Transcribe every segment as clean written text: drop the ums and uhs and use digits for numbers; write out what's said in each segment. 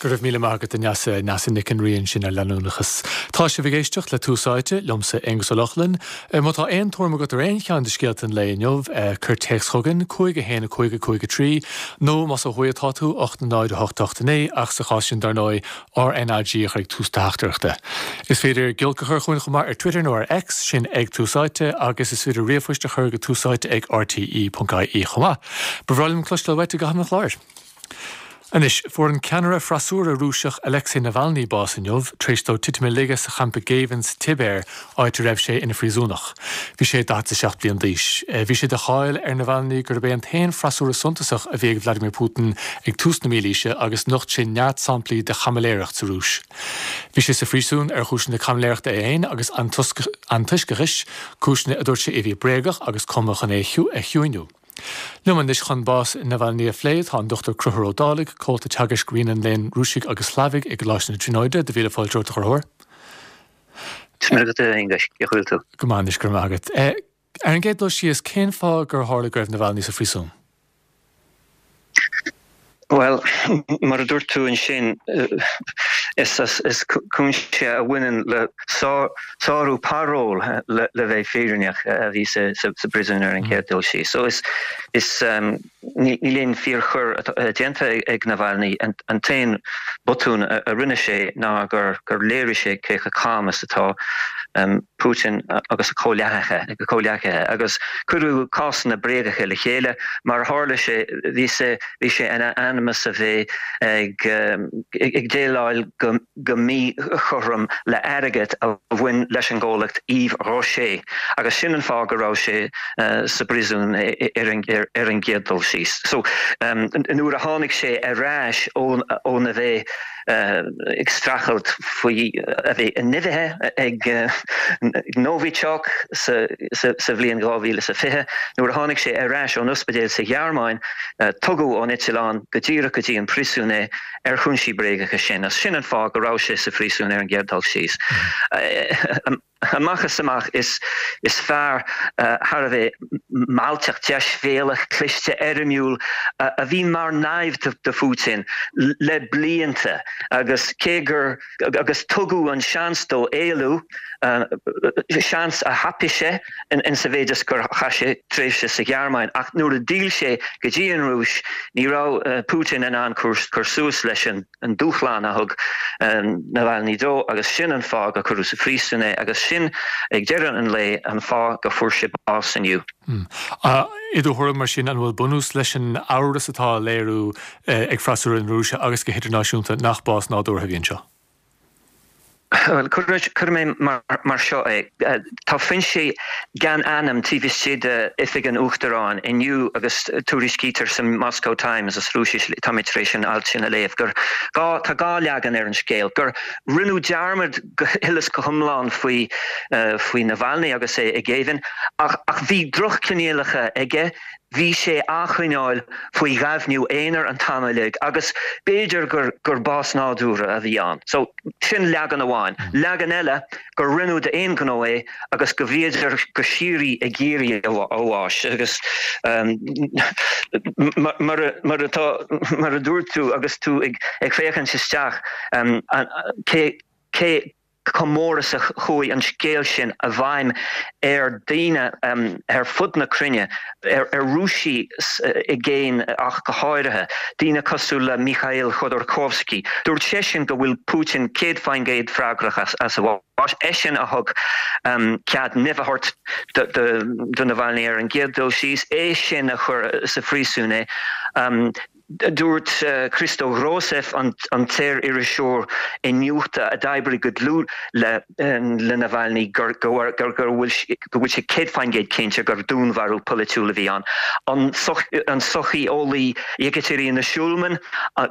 Go raibh míle maith agat a Neasa, Neasa Nic an Rí ansin ar leanúnachas. Tá sibh ag éisteacht le Tús Áite, liomsa Aonghus Ó Lochlainn. Má tá aon tuairim agat ar aon cheann de scéalta an lae inniu, cuir téacs chugainn, 5 1 5 5 3, nó más ó thuaidh atá tú, 8 0 8 8 9, ach sa chás sin dar ndóigh, RnaG a chur ag tús do theachtaireachta. Is féidir giolc a chur chugainn chomh maith ar Twitter nó ar X, sin ag Tús Áite, agus is féidir ríomhphoist a chur go túsáite ag rte.ie chomh maith. Ba bhreá liom cloisteáil uait i gcaitheamh an chláir. Anois, fuair an ceannaire freasúra Rúiseach Alexei Navalny bás inniu, tar éis dó titim i laige sa champa géibhinn sa tSibéir, áit a raibh sé ina phríosúnach. Bhí sé 47 bliain d'aois. Bhí sé de cháil ar Navalny gurb é an t-aon freasúra suntasach a bhí ag Vladimir Putin ag tús na mílaoise agus nocht sé neart samplaí de chaimiléireacht sa Rúis. Bhí sé sa phríosún ar chúiseanna caimiléireachta é féin agus antoisceachais, cúiseanna a dúirt sé a bhí bréagach agus cumtha chun é a chiúiniú. Liom anois chun bás Navalny a phlé tá an Dr Conchúr Ó Dálaigh, Comhalta Teagaisc Roinn an Léinn Rúisigh agus Shlavaigh i gColáiste na Tríonóide. Do mhíle fáilte romhat, a Chonchúir. Tá maith agat, a Aonghuis. Cén chaoi a bhfuil tú? Go maith anois, go raibh maith agat. Ar an gcéad dul síos, cén fáth gur tharla go raibh Navalny sa phríosún? Bhuel, mar a dúirt tú ansin, is cúinsí a bhaineann le sárú parole le bheith fírinneach a bhí sa bpríosún ar an chéad dul síos. So is níl aon fíorchoir déanta ag Navalny. An t-aon botún a rinne sé ná gur léirigh sé cé chomh cam is atá Putin agus a chomhghleacaithe agus cuireadh cásanna bréagacha le chéile. Mar a tharla sé, bhí sé bhí sé in ainm is a bheith ag déileáil go míchothrom le airgead a bhain leis an gcomhlacht Yves Rocher agus sin an fáth go raibh sé sa bpríosún ar an gcéad dul síos. So nuair a tháinig sé ar ais óna bheith ag streachailt faoi a bheith nimhithe ag Novichok sa bhliain 2020. Nuair a tháinig sé ar ais ón ospidéal sa Ghearmáin, tugadh ón eitleán go díreach go dtí an príosún é ar chúinsí bréagacha sin. Sin an fáth go raibh sé sa phríosún ar an gcéad dul síos. Amach is amach, is fear thar a bheith mealltach, deisbhéalach, cliste, éirimiúil a bhí mar naimhde do Phutin le blianta agus cé gur agus tugadh an seans dó éalú, seans a thapaigh sé in sa mhéid is gur chaith sé tréimhse sa Ghearmáin ach nuair a d'fhill sé go dtí an Rúis ní raibh Putin in ann cur suas leis an an dúshlán a thug Navalny dó agus sin an fáth gur cuireadh sa phríosún é agus sin, ag deireadh an lae, an fáth go fuair sé bás inniu. I do thuairim, mar sin, an bhfuil bunús leis an amhras atá á léiriú ag freasúra na Rúise agus go hidirnáisiúnta nach bás nádúrtha a bhí anseo? Bhuel, cuirfidh mé mar seo é. Tá foinsí gan ainm taobh istigh d'Oifig an Uachtaráin inniu agus tuairiscítear sa Moscow Times, as Rúisis, tá mé tar éis an alt sin a léamh, gur gá, tá dhá leagan ar an scéal, gur rinneadh dearmad go huile is go hiomlán faoi faoi Navalny agus é i ngéibheann ach ach bhí drochchoinníollacha aige, Bhí sé á choinneáil faoi ghaibhniú aonair an t-am uilig agus b'fhéidir gur gur bás nádúrtha a bhí ann. So, sin leagan amháin. Leagan eile, gur rinneadh d'aon ghnó é agus go bhíodar go síoraí ag iarraidh a bháis agus mar mar atá mar a dúirt tú agus tú ag ag féachaint isteach cé cé chomh mór is a chuaigh an scéal sin i bhfeidhm ar dhaoine ar fud na cruinne, ar Rúisigh i gcéin ach go háirithe, daoine cosúil le Mikhail Khodorkovsky. Dúirt seisean go bhfuil Putin 100% freagrach as a bhás. Eisean a thug cead nimh a thabhairt do Navalny ar an gcéad dul síos, é sin a chuir sa phríosún é. Dúirt Christo Grozev, an saoririseoir iniúchta a d'oibrigh go dlúth le Navalny, go bhfuil sé 100% cinnte gur dúnmharú polaitiúil a bhí ann. An socheolaí Yekaterina Shulman,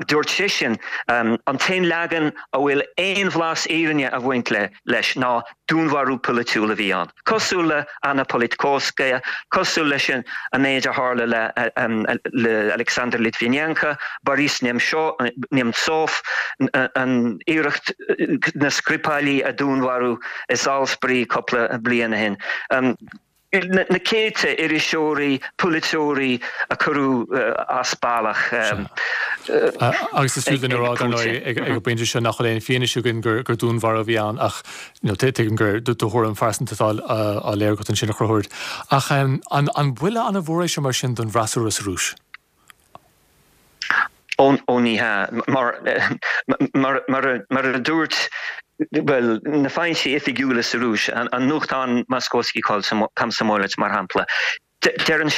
dúirt sise, an t-aon leagan a bhfuil aon bhlas fhírinne ag baint leis ná dúnmharú polaitiúil a bhí ann, cosúil le Anna Politkovskaya, cosúil leis an méid a tharla le Alexander Litvinenko, Boris Nemtsov, an iarracht na Skripali a dúnmharú i Salisbury cúpla bliain ó shin. Na céadta iriseoirí, polaiteoirí a cuireadh as bealach. Agus is fiú dúinn a rá, dar ndóigh, ag an bpointe seo nach bhfuil aon fianaise againn gur dúnmharú a bhí ann ach tuigim gur do thuairim phearsanta atá á léiriú agat ansin, a Chonchúir. Ach an buille an-mhór é seo mar sin don bhfreasúra sa Rúis? Ó ní hea. Mar mar a dúirt, bhuel, na foinsí oifigiúla sa Rúis, an nuachtán Moskovsky Komsomolets mar shampla, Deireann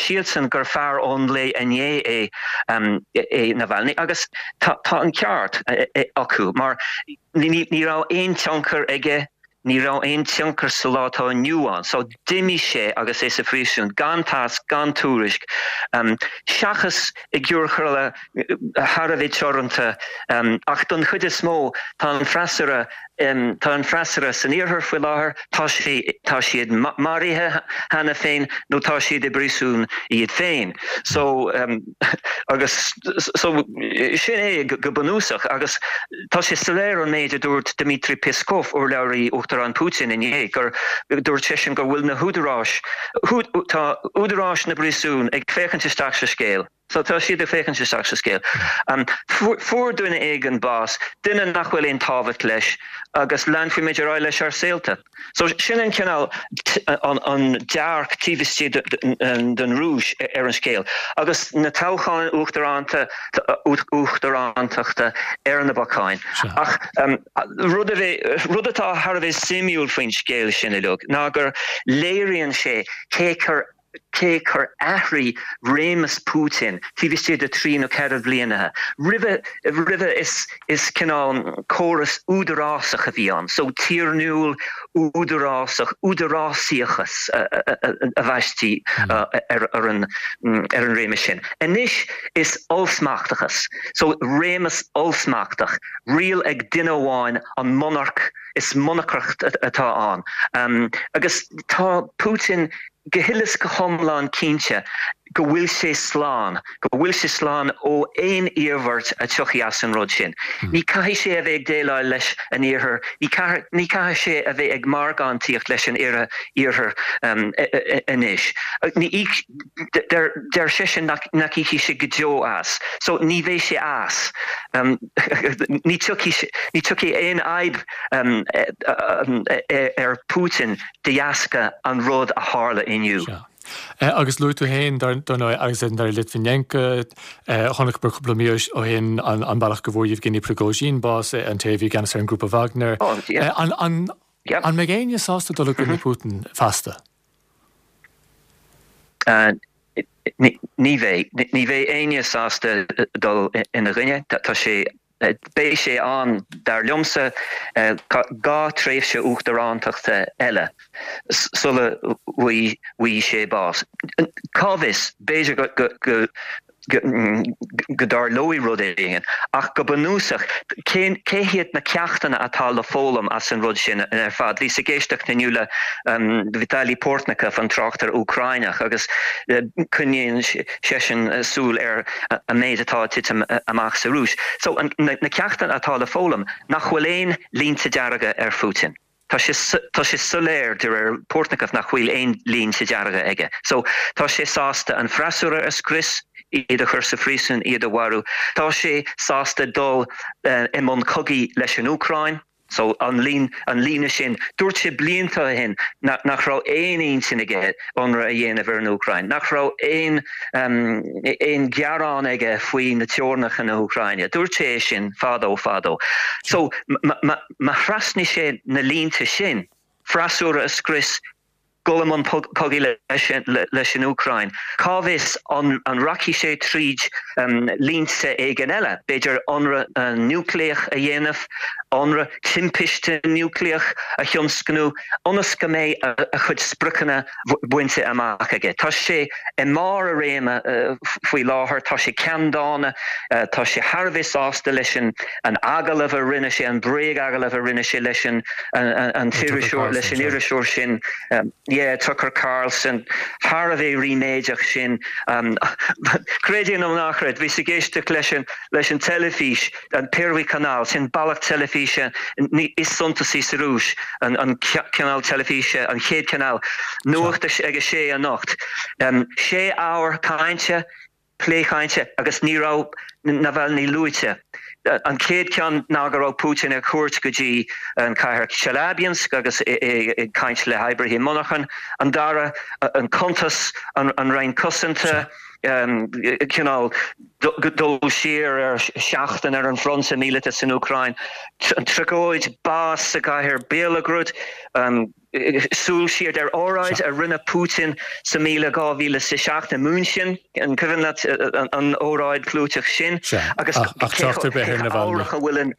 siadsan gur fear ón lae inné é é Navalny agus tá an ceart acu mar ní raibh aon tionchar aige, ní raibh aon tionchar sa lá atá inniu ann. So d'imigh sé agus é sa phríosún gan tásc, gan tuairisc, seachas i gciorcail thar a bheith teoranta ach don chuid is mó tá an freasúra Tá an freasúra san iarthar faoi láthair, tá sé, tá siad maraithe cheana féin nó tá siad i bpríosún iad féin. So, agus, so, sin é go bunúsach agus tá sé soiléir ón méid a dúirt Dmitry Peskov, urlabhraí Uachtarán Putin inné, gur, dúirt seisean go bhfuil na húdaráis, tá údaráis na bpríosún ag féachaint isteach sa scéal. So tá siad ag féachaint isteach sa scéal. Fuair duine éigin bás, duine nach bhfuil aon tábhacht leis, agus leanfaimid ar aghaidh leis ár saolta. So sin an cineál, an dearc taobh istigh den Rúis ar an scéal. Agus na toghcháin uachtaránta, uachtarántachta ar na bacáin. Ach rud a bheith, rud atá thar a bheith suimiúil faoin scéal sin uilig ná gur léiríonn sé cé chomh cé chor athraigh réimeas Putin taobh istigh de thrí nó ceithre bhliana. Roimhe, roimhe is, is cineál córas údarásach a bhí ann, so tiarnúil, údarásach, údarásaíochas a bhaistí ar, ar an, ar an réimeas sin. Anois is ollsmachtachas, so réimeas ollsmachtach, riail ag duine amháin, an monarc, is monarcacht atá ann. Agus tá Putin go huile is go hiomlán cinnte go bhfuil sé slán, go bhfuil sé slán ó aon iarmhairt a tiocfaidh as an rud sin. Ní caithfidh sé a bheith ag déileáil leis an Iarthar, ní caithfidh sé a bheith ag margántaíocht leis an Iarthar anois. Deir seisean nach íocfaidh sé go deo as. So ní bheidh sé as. Ní tiocfaidh aon fhadhb ar Putin de dheasca an rud a tharla inniu. Sea. Agus luaigh tú féin, dar ndóigh, Alexander Litvinenko, chonaiceamar cúpla mí ó shin an bealach go bhfuair Yevgeny Prigozhin bás, an té a bhí i gceannas ar an ngrúpa Wagner. An mbeidh éinne sásta dul i gcoinne Putin feasta? Ní bheidh. Ní bheidh éinne sásta dul ina gcoinne. Tá sé, beidh sé ann, dar liomsa, dhá tréimhse uachtarántachta eile sula bhfaighidh sé bás. Cá bhfios, b'fhéidir go go dtarlóidh rud éigin, ach go bunúsach, cé cé hiad na ceachtanna atá le foghlaim as an rud sin ar fad? Bhíos ag éisteacht inniu le Vitaly Portnikov, an tráchtaire Úcráineach, agus coinníonn seisean súil ar an méid atá ag titim amach sa Rúis. So, na ceachtanna atá le foghlaim, nach bhfuil aon línte dearga ar Phutin. Tá sé, tá sé soiléir de réir Portnikov nach bhfuil aon línte dearga aige. So, tá sé sásta an freasúra a scrios, iad a chur sa phríosún, iad a mharú. Tá sé sásta dul i mbun cogaidh leis an Úcráin. So, an lín, an líne sin, dúirt sé blianta ó shin nach raibh aon intinn aige ionradh a dhéanamh ar an Úcráin, nach raibh aon, aon ghearán aige faoi na teorainneacha na hÚcráine. Dúirt sé é sin fadó, fadó. So, má, Má thrasnaigh sé na línte sin, freasúra a scrios, dul i mbun cogaidh leis an Úcráin, cá bhfios an rachaidh sé tríd línte éigin eile, b'fhéidir ionradh núicléach a dhéanamh, ionradh timpiste núicléach a thionscnú, ionas go mbeidh a chuid spriocanna bainte amach aige. Tá sé i mbarr a réime faoi láthair, tá sé ceanndána, tá sé thar a bheith sásta leis an agallamh a rinne sé, an bréag-agallamh a rinne sé leis an t-iriseoir, leis an iriseoir sin, yeah, Tucker Carlson, thar a bheith ríméadach sin. Creid é nó ná creid, bhíos ag éisteacht leis an leis an teilifís, an Pervyi Kanal, sin bealach teilifíse is suntasaí sa Rúis, an cineál teilifíse, an chéad chineál, nuacht ag a sé anocht. Sé uair cainte. plé cainte agus ní raibh Navalny luaite. An chéad ceann ná go raibh Putin ar cuairt go dtí an cathair Chelyabinsk agus é ag caint le hoibrithe monarchan. An dara, an cuntas, an Roinn Cosanta, cineál dul siar ar sheachtain ar an bhfronta míleata san Úcráin, an tragóid, bás sa gcathair Belgorod, súil siar ar óráid a rinne Putin sa míle 2007 i München, an cuimhin leat an óráid chlúiteach sin? Agus ach trácht ar bith ar Navalny. A bhfuil an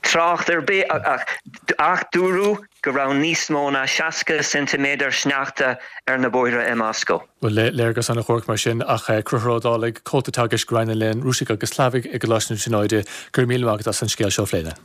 trácht ar bith ach dúradh go raibh níos mó ná 60 ceintiméadar sneachta ar na bóithre i Moscó. Bhuel, léargas an-dhuairc mar sin, ach Conchúr Ó Dálaigh, Comhalta Teagaisc Roinn an Léinn Rúisigh agus Shlavaigh i gColáiste na Tríonóide, go raibh míle maith agat as an scéal seo a phlé linn.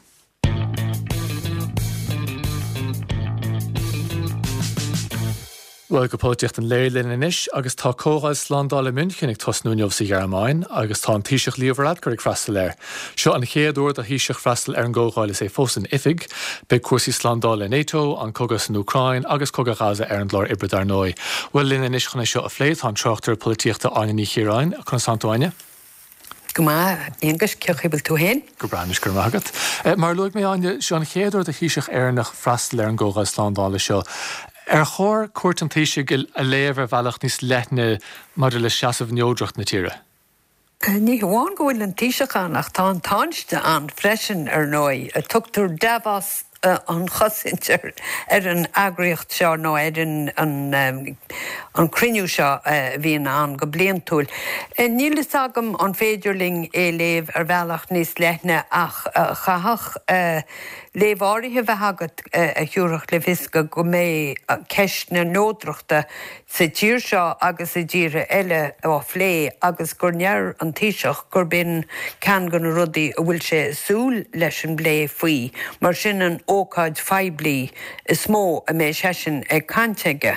Bhuel, go polaitíocht an lae linn anois agus tá Comhdháil Slándála München ag tosnú inniu sa Ghearmáin agus tá an Taoiseach Leo Varadkar ag freastal air. Seo an chéad uair do Thaoiseach freastal ar an gcomhdháil is é fós in oifig. Beidh cúrsaí slándála NATO, an cogadh san Úcráin agus cogadh Ghaza ar an gclár oibre dar ndóigh. Bhuel, linn anois chun é seo a phlé tá an tráchtaire polaitíochta Áine Ní Chiaráin. Conas tánn tú, Áine? Go maith, a Aonghuis, cén chaoi a bhfuil tú féin? Go breá anois, go raibh maith agat. Mar a luaigh mé, Áine, seo an chéad uair do Thaoiseach Éireannach freastal ar an gComhdháil Slándála seo. Ar chóir cuairt an Taoisigh a léamh ar bhealach níos leithne maidir le seasamh neodracht na tíre? Ní hamháin go bhfuil an Taoiseach ann ach tá an Tánaiste ann freisin, ar ndóigh. Tugtar Davos an chosaint ar an eagraíocht seo nó ar an cruinniú seo a bhíonn ann go bliantúil. Níl fhios agam an féidir linn é léamh ar bhealach níos leithne ach chaithfeadh léamh áirithe bheith agat a thiúrfadh le fios go mbeidh ceist na neodrachta sa tír seo agus i dtíortha eile á phlé agus gur ndeir an Taoiseach gurb in ceann de na rudaí a bhfuil sé ag súil leis an bplé faoi mar sin an ócáid phoiblí is mó a mbeidh seisean ag caint aige.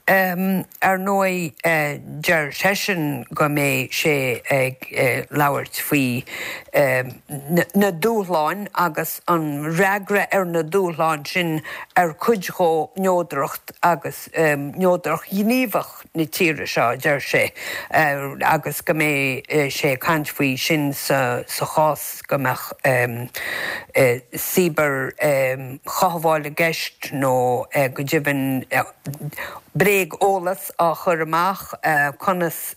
Ar ndóigh deir seisean go mbeidh sé ag labhairt faoi na dúshláin agus an fhreagra ar na dúshláin sin ar cuid dhó neodracht agus neodracht ghníomhach na tíre seo, a deir sé, agus go mbeidh sé ag caint faoi sin sa chás go mbeadh cibear-chothabháil i gceist nó go deimhin bréag-eolas á chur amach, conas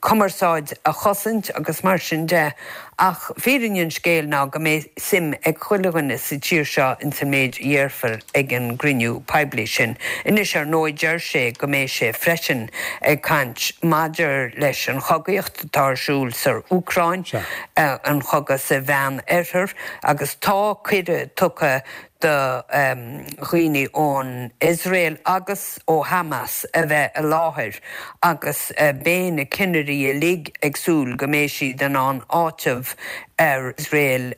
cumarsáid a chosaint agus mar sin de ach fírinne an scéil ná go mbeidh suim ag chuile dhuine sa tír seo ins an méid a dhéarfar ag an gcruinniú poiblí sin. Anois ar ndóigh deir sé go mbeidh sé freisin ag caint maidir leis an chogaíocht atá ar siúl sa Úcráin, an chogadh sa Mheán Oirthear agus tá cuireadh tugtha do dhaoine ón Iosrael agus ó Hamas a bheith i láthair agus beidh na cinnirí uilig ag súil go mbeidh siad in ann áiteamh ar Iosrael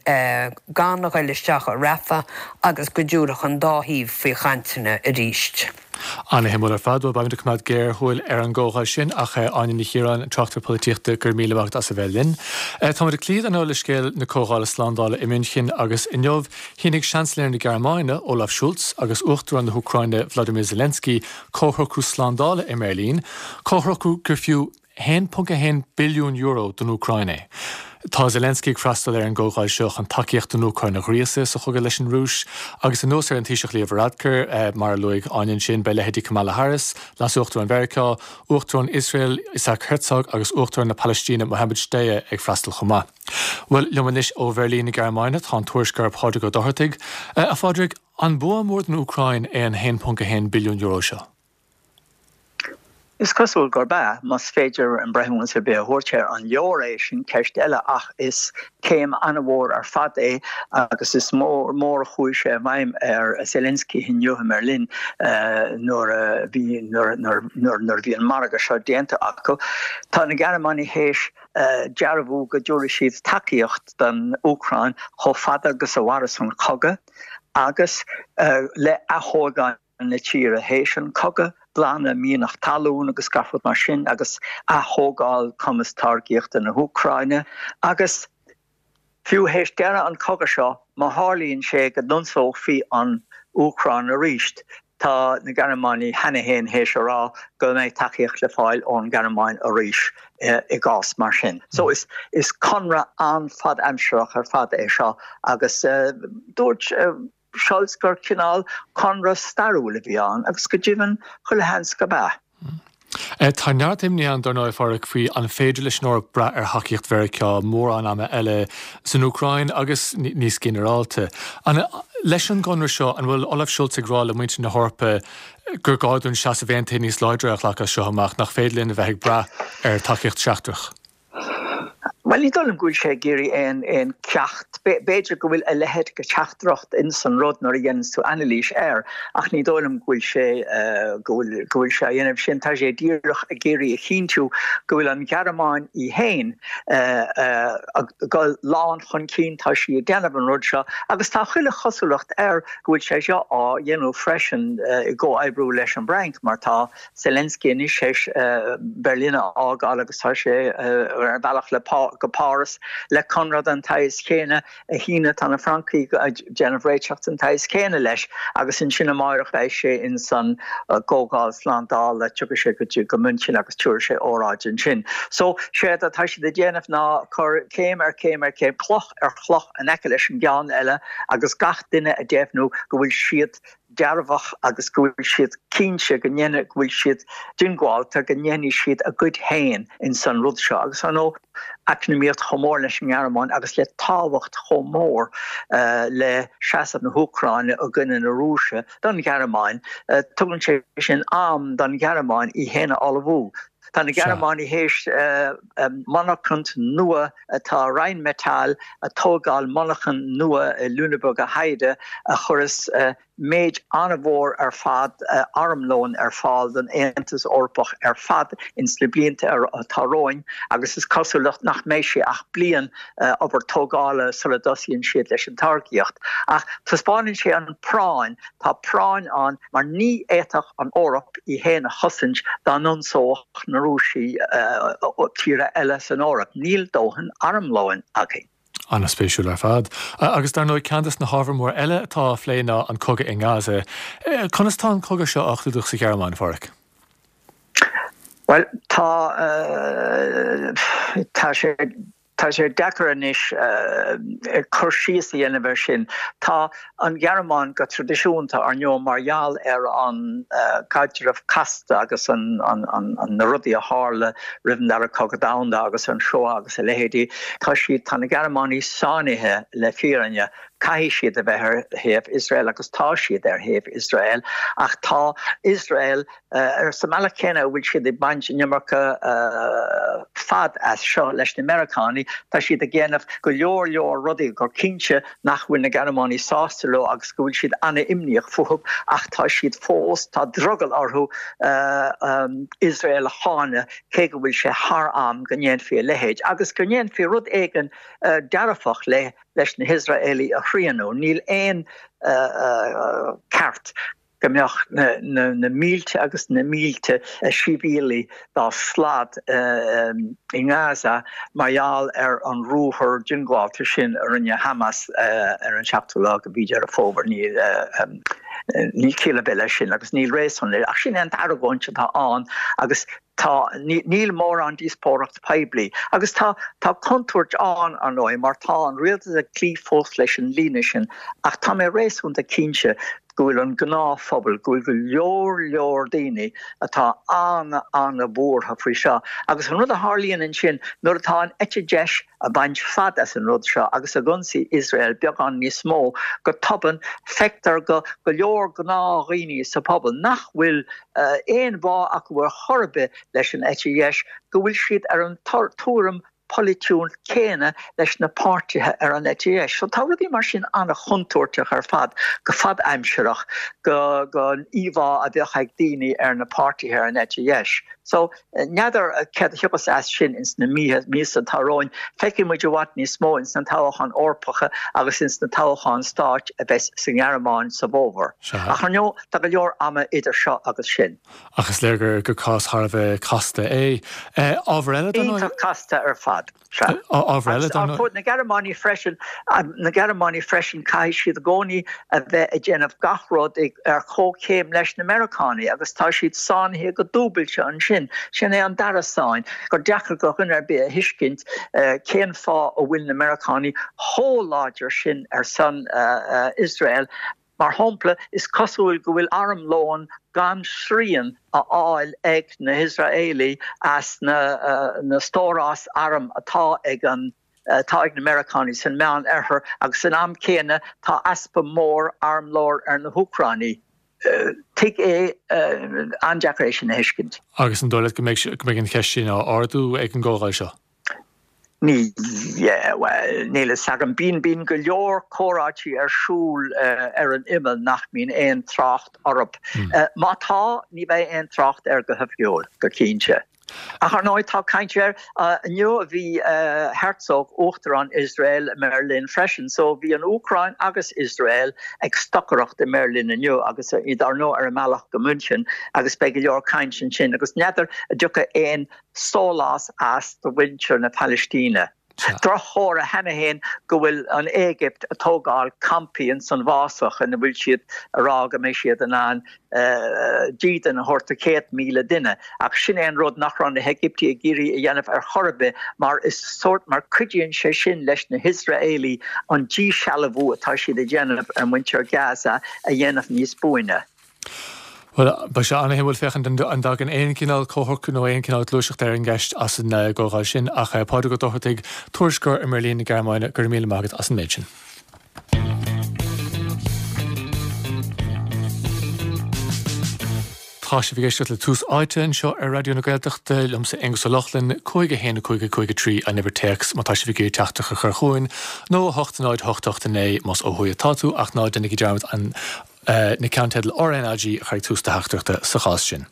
gan a ghoil isteach i Rafah agus go dtiúrfadh an dá thaobh faoi chainteanna arís. Ana-shuimiúil ar fad. Bhuel, beimid ag coimeád géarshúil ar an gcomhdháil sin ach Áine Ní Chiaráin, an tráchtaire polaitíochta, go raibh míle maith agat as a bheith linn. Táimid ag cloí ar ndóigh le scéal na Comhdhála Slándála i München agus inniu shínigh Seansailéir na Gearmáine, Olaf Scholz, agus Uachtarán na hÚcráine, Vladimir Zelensky, comhshocrú slándála i mBeirlín, comhshocrú gur fiú €1.1 billiún don Úcráin é. Tá Zelensky ag freastal ar an gcomhdháil seo chun tacaíocht don Úcráin a ghríosadh sa chogadh leis an Rúis. Agus anuas ar an Taoiseach Leo Varadkar, mar a luaigh Áine ansin, beidh leithéidí Kamala Harris, Leas-Uachtarán Mheiriceá, Uachtarán Iosrael Isaac Herzog agus Uachtarán na Palaistíne Mohammed Shtayyeh ag freastal chomh maith. Bhuel, liom anois ó Bheirlín na Gearmáine tá an tuairisceoir Pádraig Ó Dochartaigh. A Phádraig, an bua mór don Úcráin é an €1.1 billiún seo? Is cosúil gurb ea, más féidir breithiúnas ar bith a thabhairt air. An leor é, sin ceist eile, ach is céim an-mhór ar fad é agus is mór mór a chuaigh sé i bhfeidhm ar Zelensky inniu i mBeirlin nuair a bhí nuair nuair a bhí an margadh seo déanta acu. Tá na Gearmánaigh théis dearbhú go dtabharfaidh siad tacaíocht don Úcráin chomh fada agus a mhairfeas an cogadh agus le aththógáil na tíre théis an cogadh, glanadh mianach talún agus gach rud mar sin agus ath-thógáil cumas táirgíochta na hÚcráine agus fiú théis deireadh an cogadh seo má tharlaíonn sé go n-ionsófaí an Úcráin arís. Tá na Gearmánaigh cheana féin théis a rá go mbeidh tacaíocht le fáil ón nGearmáin arís i gcás mar sin. So is is conradh an-fhadaimsearach ar fad é seo agus dúirt Scholz gur cineál conradh stairiúil a bhí ann agus go deimhin chuile sheans gurb ea. Tá neart imní ann, dar ndóigh, a Pháraic, faoi an féidir leis an Eoraip brath ar thacaíocht Mheiriceá mórán ama eile san Úcráin agus níos ginearálta. Leis an gconradh seo, an bhfuil Olaf Scholz ag rá le muintir na hEorpa gur gá dúinn seasamh aontaithe níos láidre a ghlacadh as seo amach, nach féidir linn a bheith ag brath ar tacaíocht sheachtrach? Bhuel, ní dóigh liom go bhfuil sé ag iarraidh aon aon ceacht. B'fhéidir go bhfuil a leithéid de theachtaireacht ins an rud nuair a dhéananns tú anailís air, ach ní dóigh liom go bhfuil sé go bhfuil go bhfuil sé á dhéanamh sin. Tá sé díreach ag iarraidh a chinntiú go bhfuil an Ghearmáin í féin ag dul lán chun cinn, tá sí ag déanamh an rud seo agus tá chuile chosúlacht air go bhfuil sé seo á dhéanamh freisin i gcomhoibriú leis an bhFrainc mar tá Zelensky anois théis Berlin a fhágáil agus tá sé ar a bhealach le go Páras le conradh den tsaghas chéanna a shíneadh. Tá na Francaigh ag déanamh réiteach den tsaghas céanna leis agus ansin amáireach beidh sé ins an gComhdháil Slándála, tiocfaidh sé go dtí go München agus tabharfaidh sé óráid ansin. So, séard atá siad ag déanamh ná cur céim ar chéim ar chéim, cloch ar chloch in aice leis an gceann eile agus gach duine ag deimhniú go bhfuil siad dearfach agus go bhfuil siad cinnte go ndéanfaidh, go bhfuil siad diongbháilte go ndéanfaidh siad a gcuid féin ins an rud seo. Agus ar ndóigh, eacnamaíocht chomh mór leis an nGearmáin agus le tábhacht chomh mór le seasamh na hÚcráine i gcoinne na Rúise don Ghearmáin, tugann sé sin am don Ghearmáin í féin a ullmhú. Tá na Gearmánaigh théis monarchan nua, tá Rheinmetall ag tógáil monarchan nua i Lüneburger Heide a chuireas méid an-mhór ar fad armlóin ar fáil don Aontas Eorpach ar fad ins na blianta atá romhainn agus is cosúil nach mbeidh sé ach bliain obair tógála sula dtosaíonn siad leis an táirgíocht. Ach taispeánann sé an práinn Tá práinn ann mar ní fhéadfadh an Eoraip í féin a chosaint dá n-ionsódh na Rúisigh tíortha eile san Eoraip. Níl dóthain armlóin againn. An-spéisiúil ar fad. Agus dar ndóigh ceann des na hábhair mór eile atá á phlé ná an cogadh i nGaza. Conas tá an cogadh seo á chlúdach sa Ghearmáin, a Pháraic? Bhuel, tá, tá sé. Tá sé deacair anois cur síos a dhéanamh air sin. Tá an Ghearmáin go traidisiúnta, ar ndóigh, mar gheall ar an gcaidreamh casta agus na rudaí a tharla roimh an Dara Cogadh Domhanda agus an Shoah agus a leithéidí, tá siad, tá na Gearmánaigh sáinnithe le fírinne. Caithfidh siad a bheith ar thaobh Iosrael agus tá siad ar thaobh Iosrael ach tá Iosrael, Sa mbealach céanna a bhfuil siad ag baint an iomarca fad as seo leis na Meiriceánaigh, tá siad ag déanamh go leor leor rudaí gur cinnte nach bhfuil na Gearmánaigh sásta leo agus go bhfuil siad an-imníoch fúthu ach tá siad fós, tá drogall orthu Iosrael a cháineadh cé go bhfuil sé thar am go ndéanfaí a leithéid agus go ndéanfaí rud éigin dearfach le leis na hIosraelaigh a shrianadh. Níl aon ceart go mbeadh na mílte agus na mílte sibhialaigh dá slad i nGaza mar gheall ar an ruathar diongbháilte sin a rinne Hamas ar an seachtú lá de mhí Deireadh Fómhair. Níl ciall ar bith leis sin agus níl réasún leis. Ach sin é an argóint atá ann agus Tá, níl mórán díospóireacht poiblí. Agus tá, tá contúirt ann, ar ndóigh, mar tá an rialtas ag cloí fós leis an líne sin, ach tá mé réasúnta cinnte go bhfuil an gnáthphobal, go bhfuil go leor leor daoine atá an-an-bhuartha faoi seo. Agus an rud a tharlaíonn ansin, nuair atá an eite dheis ag baint fad as an rud seo agus ag ionsaí Iosrael beagán níos mó, go tobann, feictear go go leor gnáthdhaoine sa phobal nach bhfuil aon bhá acu ar chor ar bith leis an eite dheis, go bhfuil siad ar an tuairim pholaitiúil céanna leis na páirtithe ar an eite dheis. So tá rudaí mar sin an-chontúirteach ar fad, go fadaimsearach, don íomhá a bheadh ag daoine ar na páirtithe ar an eite dheis. So, n'fheadar céard a thiocfas as sin ins na míosa atá romhainn. Feicfidh muid i bhfad níos mó ins na toghcháin Eorpacha agus ins na toghcháin stáit a bheas sa nGearmáin sa bhfómhar. Ach ar ndóigh, tá go leor ama idir seo agus sin. Ach is léir gur cás thar a bheith casta é. Ábhar eile, dar ndóigh. Iontach casta ar fad. Sea. Ábhar eile, dar ndóigh. Agus na Gearmánaigh freisin, na Gearmánaigh freisin, caithfidh siad i gcónaí a bheith ag déanamh gach rud ar chomhchéim leis na Meiriceánaigh agus tá siad sáinnithe go dúbailte ansin. Sin é an dara sáinn, gur deacair do dhuine ar bith a thuiscint cén fáth a bhfuil na Meiriceánaigh chomh láidir sin ar son Iosrael. Mar shampla, is cosúil go bhfuil armlón gan srian á fháil ag na hIosraelaigh as na stóráis arm atá ag an atá ag na Meiriceánaigh san Meán Oirthear agus san am céanna tá easpa mór armlóin ar na hÚcránaigh. Tuig é, an-deacair é sin a thuiscint. Agus an dóigh leat go mbeidh an cheist sin á ardú ag an gcomhdháil seo? Ní, bhuel, níl a fhios agam. Bíonn, bíonn go leor comhráití ar siúl ar an imeall nach mbíonn aon trácht orthu. Má tá, ní bheidh aon trácht air go hoifigiúil, go cinnte. Ach ar ndóigh, tá caint air. Inniu bhí Herzog, Uachtarán Iosrael, i mBeirlin freisin. So bhí an Úcráin agus Iosrael ag stocaireacht i mBeirlin inniu agus iad ar ndóigh ar a mbealach go München agus beidh go leor caint ansin agus n'fheadar an dtiocfaidh aon sólás as do mhuintir na Palaistíne. Droch-chomhartha cheana féin go bhfuil an Éigipt ag tógáil campaí ins an bhfásach ina bhfuil siad ag rá go mbeidh siad in ann dídean a thabhairt do 100,000 duine. Ach sin é an rud nach raibh na hÉigiptigh ag iarraidh a dhéanamh ar chor ar bith mar is sórt mar cuidíonn sé sin leis na hIosraelaigh an díshealbhú atá siad ag déanamh ar mhuintir Gaza a dhéanamh níos buaine. Bhuel, beidh sé an-shuimiúil féachaint an dtagann aon chineál comhshocrú nó aon chineál gluaiseachta ar an gceist as an gcomhdháil sin. Ach Pádraig Ó Dochartaigh, tuairisceoir i mBeirlín na Gearmáine, go raibh míle maith agat as an méid sin. Tá sibh ag éisteacht le Tús Áite anseo ar Raidió na Gaeltachta, liomsa Aonghus Ó Lochlainn, 5 1 5 5 3 an uimhir téacs má tá sibh ag iarraidh teachtaireacht a chur chugainn, nó 8 0 8 8 9 más ó thuaidh atá tú, ach ná déanaigí dearmad an na ceannteidil RnaG a chur ag tús do theachtaireachta sa chás sin.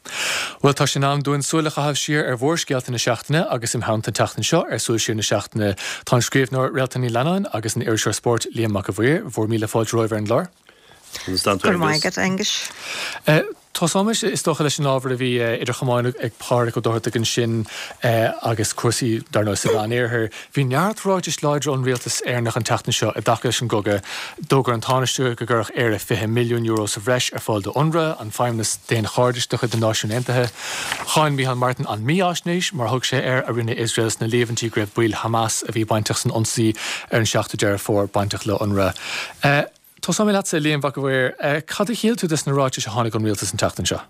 Bhuel, tá sé in am dúinn súil a chaitheamh siar ar mhórscéalta na seachtaine agus im theannta an tseachtain seo ar Súil Siar na Seachtaine tá an scríbhneoir Réaltán Ní Leannáin agus an iriseoir spóirt Liam Mac a' Mhaoir. Bhur míle fáilte romhaibh ar an gclár. Go raibh maith agat, Aonghus. Tosóimis, is dócha, leis an ábhar a bhí idir chamáin ag Pádraig Ó Dochartaigh ansin agus cúrsaí, dar ndóigh, sa Mheánoirthear. Bhí neart ráitis láidre ón rialtas Éireannach an tseachtain seo i dtaca leis an gcogadh. D'fhógair an Tánaiste go gcuirfeadh Éire €20 milliún sa bhreis ar fáil do Unrwa, an feidhmeannas daonchairdis de chuid na Náisiún Aontaithe. Cháin Micheál Martin an mífhaisnéis, mar a thug sé air, a rinne Iosrael sna líomhaintí go raibh baill Hamas a bhí bainteach san ionsaí ar an 7ú Deireadh Fómhair bainteach le Unrwa. Tosóidh mé leatsa, a Liam Mhac a' Mhaoir. Cad a shíl tú des na ráitis a tháinig ón rialtas an tseachtain seo?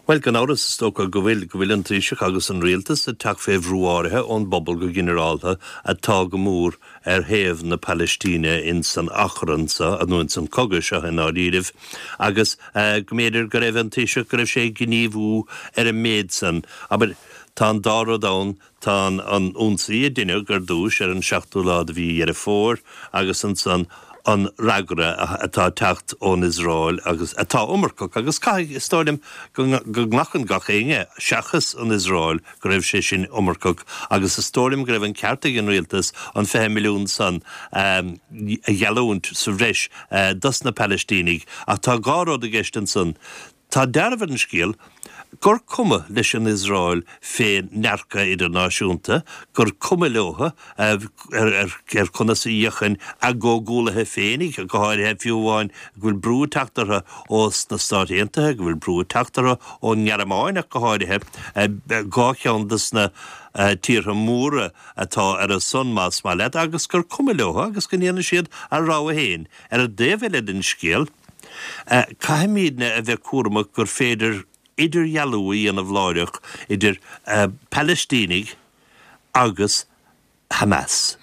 Bhuel, gan amhras, is dócha go bhfuil, go bhfuil an Taoiseach agus an Rialtas ag teacht fé bhrú áirithe ón bpobal go ginearálta atá go mór ar thaobh na Palaistíne ins an achrann seo, nó ins an cogadh seo i ndáiríribh, agus go mb'fhéidir go raibh an Taoiseach, go raibh sé ag gníomhú ar an méid san. Abair, tá an dá rud ann, Tá an ionsaí a deineadh ar dtúis ar an seachtú lá de mhí Dheireadh Fómhair agus ansan an fhreagra atá ag teacht ón Iosrael agus atá iomarcach agus caithfidh, is dóigh liom, go nglacann gach éinne, seachas an Iosrael, go raibh sé sin iomarcach agus is dóigh liom go raibh an ceart ag an rialtas an 20 milliún san a gheallúint sa bhreis dos na Palaistínigh ach tá dhá rud i gceist ansan. Tá dealramh ar an scéal gur cuma leis an Iosrael fén ndearcadh idirnáisiúnta, gur cuma leo ar conas a fhéachann a gcomhghuallaithe féinig, go háirithe, fiú amháin, go bhfuil brú ag teacht orthu ós na Stáit Aontaithe, go bhfuil brú ag teacht orthu ón nGearmáin ach go háirithe, dhá cheann dos na tíortha móra atá ar a son, más maith leat, agus gur cuma leo agus go ndéanann siad a rogha féin. Ar an dtaobh eile den scéal, Caithfimídne a bheith cúramach gur féidir idirdhealú a dhéanamh láithreach idir Palaistínigh agus Hamas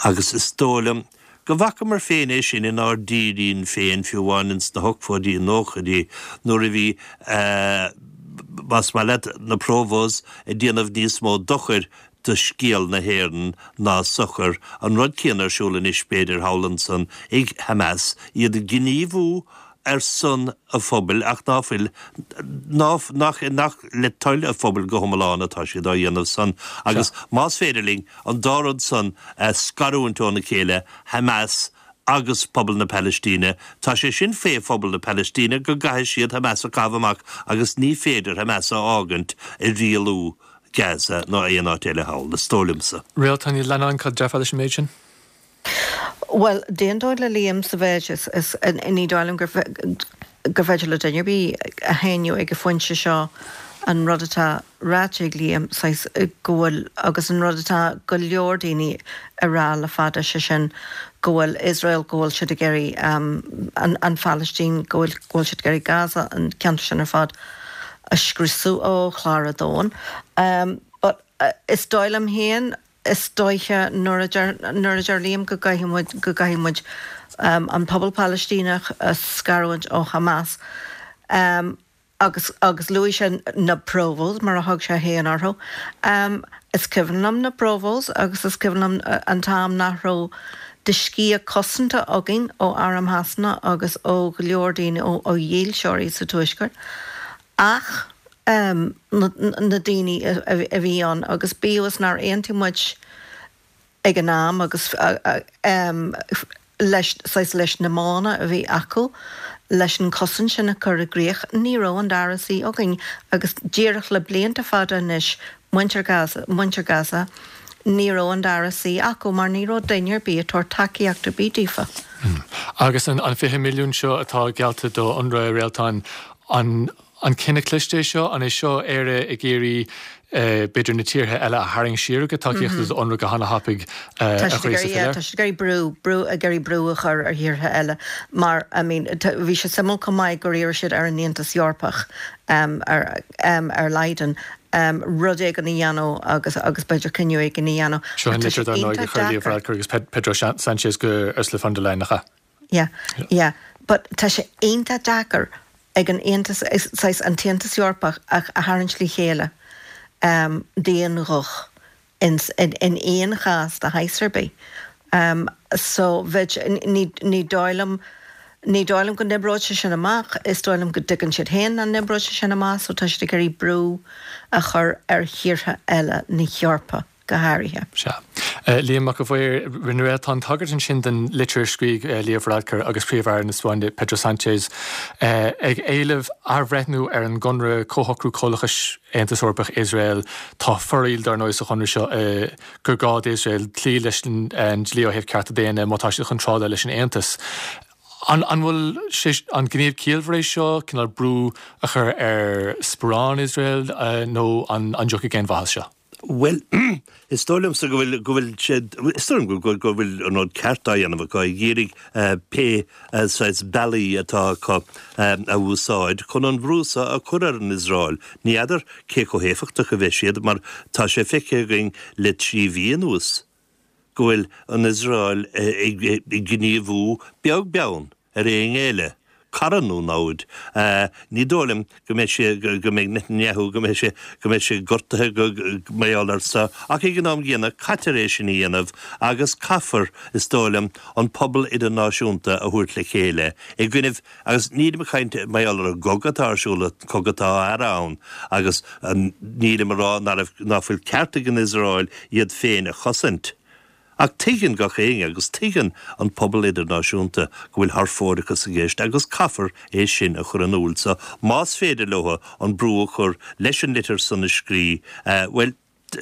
agus is dóigh liom go bhfacamar féin é sin inár dtírín féin fiú amháin ins na hochtóidí, nóchaidí nuair a bhí, más maith leat, na Provos ag déanamh níos mó dochair do scéal na hÉireann ná sochar. An rud céanna ar siúl anois, b'fhéidir, thall ansan ag Hamas, iad ag gníomhú. ar son a phobail ach ná fuil, ná, nach, nach le toil a phobail go hiomlán atá siad á dhéanamh san agus más féidir linn an dá rud san a scarúint óna chéile, Hamas agus pobal na Palaistíne, tá sé sin fé phobal na Palaistíne go gcaithfidh siad Hamas a chaitheamh amach agus ní féidir Hamas a fhágaint ag rialú Gaza ná aon áit eile thall, is dóigh liomsa. Réaltán Ní Leannáin, cad a déarfá leis an méid sin? Bhuel, d'aontóinn le Liam sa mhéid is, is, ní dóigh liom gur, gur féidir le duine ar bith a shéanadh ag an phointe seo an rud atá ráite ag Liam, saghas, go bhfuil, agus an rud atá go leor daoine a rá le fada, sé sin go bhfuil Iosrael, go bhfuil siad ag iarraidh an, an Phalaistín, go bhfuil, go bhfuil siad ag iarraidh Gaza, an ceantar sin ar fad a scriosadh ó chlár an domhain. But is dóigh liom féin, Is dóiche nuair a deir nuair a deir Liam go gcaithfidh muid go gcaithfidh muid an pobal Palaistíneach a scarúint ó Hamas agus agus luaigh sé na Provos mar a thug sé féin orthu. Is cuimhin liom na Provos agus is cuimhin liom an t-am nach raibh de sciath cosanta againn ó arm Shasana agus ó go leor daoine ó ó dhílseoirí sa Tuaisceart. Ach na daoine a bhí ann, agus bíodh is nár aontaigh muid ag an am agus leis, saghas leis na modhanna a bhí acu leis an chosaint sin a chur i gcrích, ní raibh an dara suí againn. Agus díreach le blianta fada anois, muintir Gaza, muintir Gaza, ní raibh an dara suí acu mar ní raibh duine ar bith ag tabhairt tacaíocht ar bith daofa. Agus an 20 milliún seo atá geallta do Unrwa, a Réaltán, An an cinneadh cliste é seo? An é seo Éire ag iarraidh b'fhéidir na tíortha eile a tharraingt siar ó gcuid tacaíochta do Unrwa go hana-thapaidh a ghríosadh faoi leith? Tá siad ag iarraidh brú, brú, ag iarraidh brú a chur ar thíortha eile mar, I mean, bhí sé suimiúil chomh maith gur iarr siad ar an Aontas Eorpach, ar, ar Leiden, rud éigin a dhéanamh agus, agus b'fhéidir cinneadh éigin a dhéanamh. Seo an litir dar ndóigh a chuir Leo Varadkar agus Pedro Sanchez go Ursula von der Leyen, nach ea? Yeah, yeah. But tá sé iontach deacair ag an Aontas, saghas an tAontas Eorpach a tharraingt le chéile d'aon ghuth in in aon chás de shaghas ar bith. So bheadh, ní ní dóigh liom, ní dóigh liom go n-oibreoidh sé sin amach, is dóigh liom go dtuigeann siad féin nach n-oibreoidh sé sin amach so tá siad ag iarraidh brú a chur ar thíortha eile na hEorpa. go háirithe. Sea. Liam Mac a' Mhaoir, rinne Réaltán tagairt ansin don litir a scrígh Leo Varadkar agus Príomh-Aire na Spáinne Pedro Sánchez ag éileamh athbhreithniú ar an gconradh Comhshocrú Comhlachais Aontas Eorpach-Iosrael. Tá foraíl, dar ndóigh, sa chonradh seo gur gá d'Iosrael cloí leis an dlí ó thaobh cearta daonna má tá siad chun trádáil leis an Aontas. An bhfuil sé, an gníomh ciallmhar é seo, cineál brú a chur ar sparán Iosrael nó an dtiocfaidh aon mhaith as seo? Bhuel, is dóigh liomsa go bhfuil, go bhfuil sé, is dóigh liom go, go bhfuil an rud ceart á dhéanamh acu, ag iarraidh pé saghas bealaí atá acu a úsáid chun an brú seo a chur ar an Iosrael. Ní fheadar cé chomh héifeachtach a bheidh siad mar tá sé feicthe againn le 3 mhí anuas go bhfuil an Iosrael ag gníomhú beag beann ar éinne eile, cara nó namhaid. Ní dóigh liom go mbeidh sé, go mbeidh Netanyahu, go mbeidh sé, go mbeidh sé gortaithe go mar gheall air seo, ach ag an am gcéanna caitear é sin a dhéanamh agus caithfear, is dóigh liom, an pobal idirnáisiúnta a thabhairt le chéile i gcoinnibh, agus nílim ag caint mar gheall ar an gcogadh atá ar siúl, an cogadh atá á fhearadh ann, agus nílim ag rá ná fuil ceart ag an Iosrael iad féin a chosaint. Ach tuigeann gach éinne, agus tuigeann an pobal idirnáisiúnta, go bhfuil thar fóireachas i gceist agus caithfear é sin a chur in iúl. So, más féidir leo an brú a chur leis an litir san a scrí, bhuel,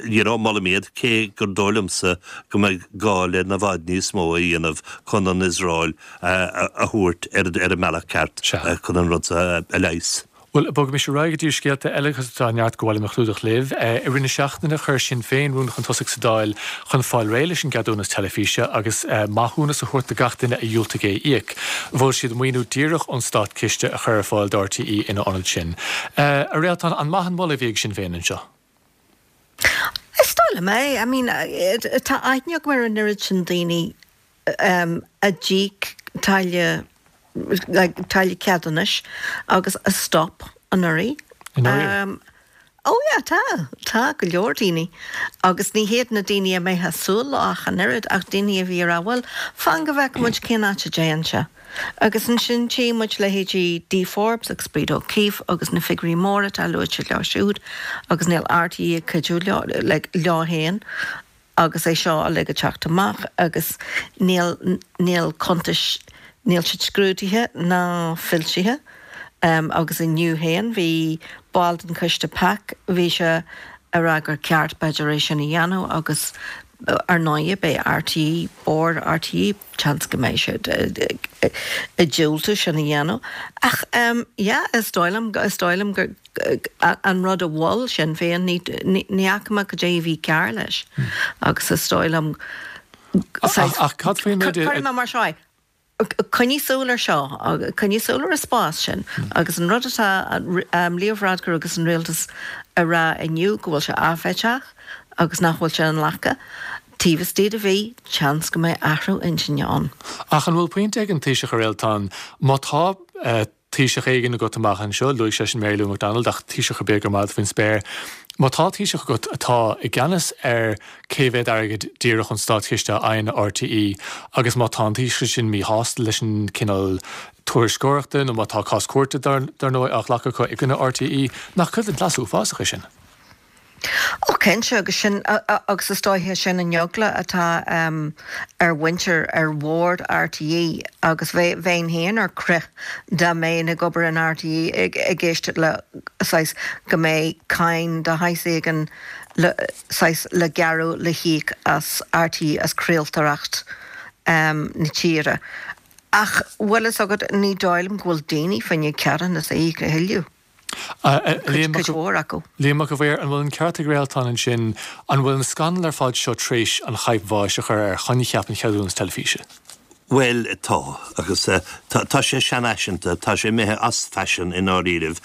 you know, molaim iad, cé gur dóigh liomsa go mbeidh gá le i bhfad níos mó a dhéanamh chun an Iosrael a thabhairt ar an mbealach ceart chun an rud seo a leigheas. Bhuel, bogaimis ar aghaidh go dtí scéalta eile agus tá neart gur mhaith liom a chlúdach libh. I rith na seachtaine chuir Sinn Féin rún chun tosaigh sa Dáil chun fáil réidh leis an gceadúnas teilifíse agus maithiúnas a thabhairt do gach duine a dhiúltaigh é a íoc. Mhol siad maoiniú díreach ón státchiste a chur ar fáil do RTÉ ina ionad sin. A Réaltán, an maith an moladh a bhí ag Sinn Féin anseo? Is dóigh liom é. I mean, tá aithne agam ar an oiread sin daoine a d'íoc táille, like, táille ceadúnais agus a stop anuraidh. Anuraidh? Oh yeah, tá, tá go leor daoine. Agus ní hiad na daoine a mbeifeá ag súil leo ach an oiread, ach daoine a bhí ag rá, bhuel, fan go bhfeice muid cén áit a dtéann sé. Agus ansin tchí muid leithéidí Dee Forbes agus Breda O'Keeffe agus na figiúirí móra atá luaite leo siúd agus níl RTÉ ag cuidiú leo, like, leo féin. agus é seo uilig ag teacht amach agus níl, níl cuntais, níl siad scrúdaithe ná foilsithe agus inniu féin bhí ball den choiste PAC, bhí sé ag rá gur ceart b'fhéidir é sin a dhéanamh agus ar ndóigh beidh RTÉ, Bord RTÉ, seans go mbeidh siad ag diúltú sin a dhéanamh ach yeah is dóigh liom, is dóigh liom gur. an rud a mhol Sinn Féin, ní fhaca mé cad é a bhí cearr leis agus is dóigh liom, saghas, Ach cad faoin méid a. Cuirfidh mé mar seo é, coinnigh súil ar seo, coinnigh súil ar an spás sin agus an rud atá Leo Varadkar agus an rialtas a rá inniu go bhfuil sé áiféiseach agus nach bhfuil sé inghlactha, taobh istigh de mhí, seans go mbeidh athrú intinne ann. Ach an bhfuil pointe ag an Taoiseach a Réaltán, má tá Taoiseach éigin agat amach anseo, luaigh seisean Mary Lou McDonald, ach Taoiseach ar bith gur maith faoin spéir, má tá Taoiseach agat atá i gceannas ar cé mhéad airgead díreach ón státchiste a fhaigheann RTÉ agus má tá an Taoiseach sin míshásta leis an cineál tuairisceoireachta nó má tá cás cúirte dar ndóigh á ghlacadh acu i gcoinne RTÉ, nach cuid den chleas uafásach é sin? Ó cinnte, agus sin, agus is dóiche sin an eagla atá ar mhuintir, ar bhord RTÉ agus bheinn féin ar crith dá mbeinn ag obair in RTÉ ag éisteacht le saghas go mbeidh cáin de shaghas éigin le saghas le gearradh le híoc as RTÉ as craoltóireacht na tíre. Ach bhfuil fhios agat ní dóigh liom go bhfuil daoine fá choinne ceadúnas a íoc a thuilleadh. Liam Mac a' Mhaoir, an bhfuil an ceart ag Réaltán ansin, an bhfuil an scannal ar fad seo tar éis an chaidhp bháis a chur ar choincheap an cheadúnas teilifíse? Bhuel, tá, agus tá sé seanfhaiseanta, tá sé imithe as faisean i ndáiríribh,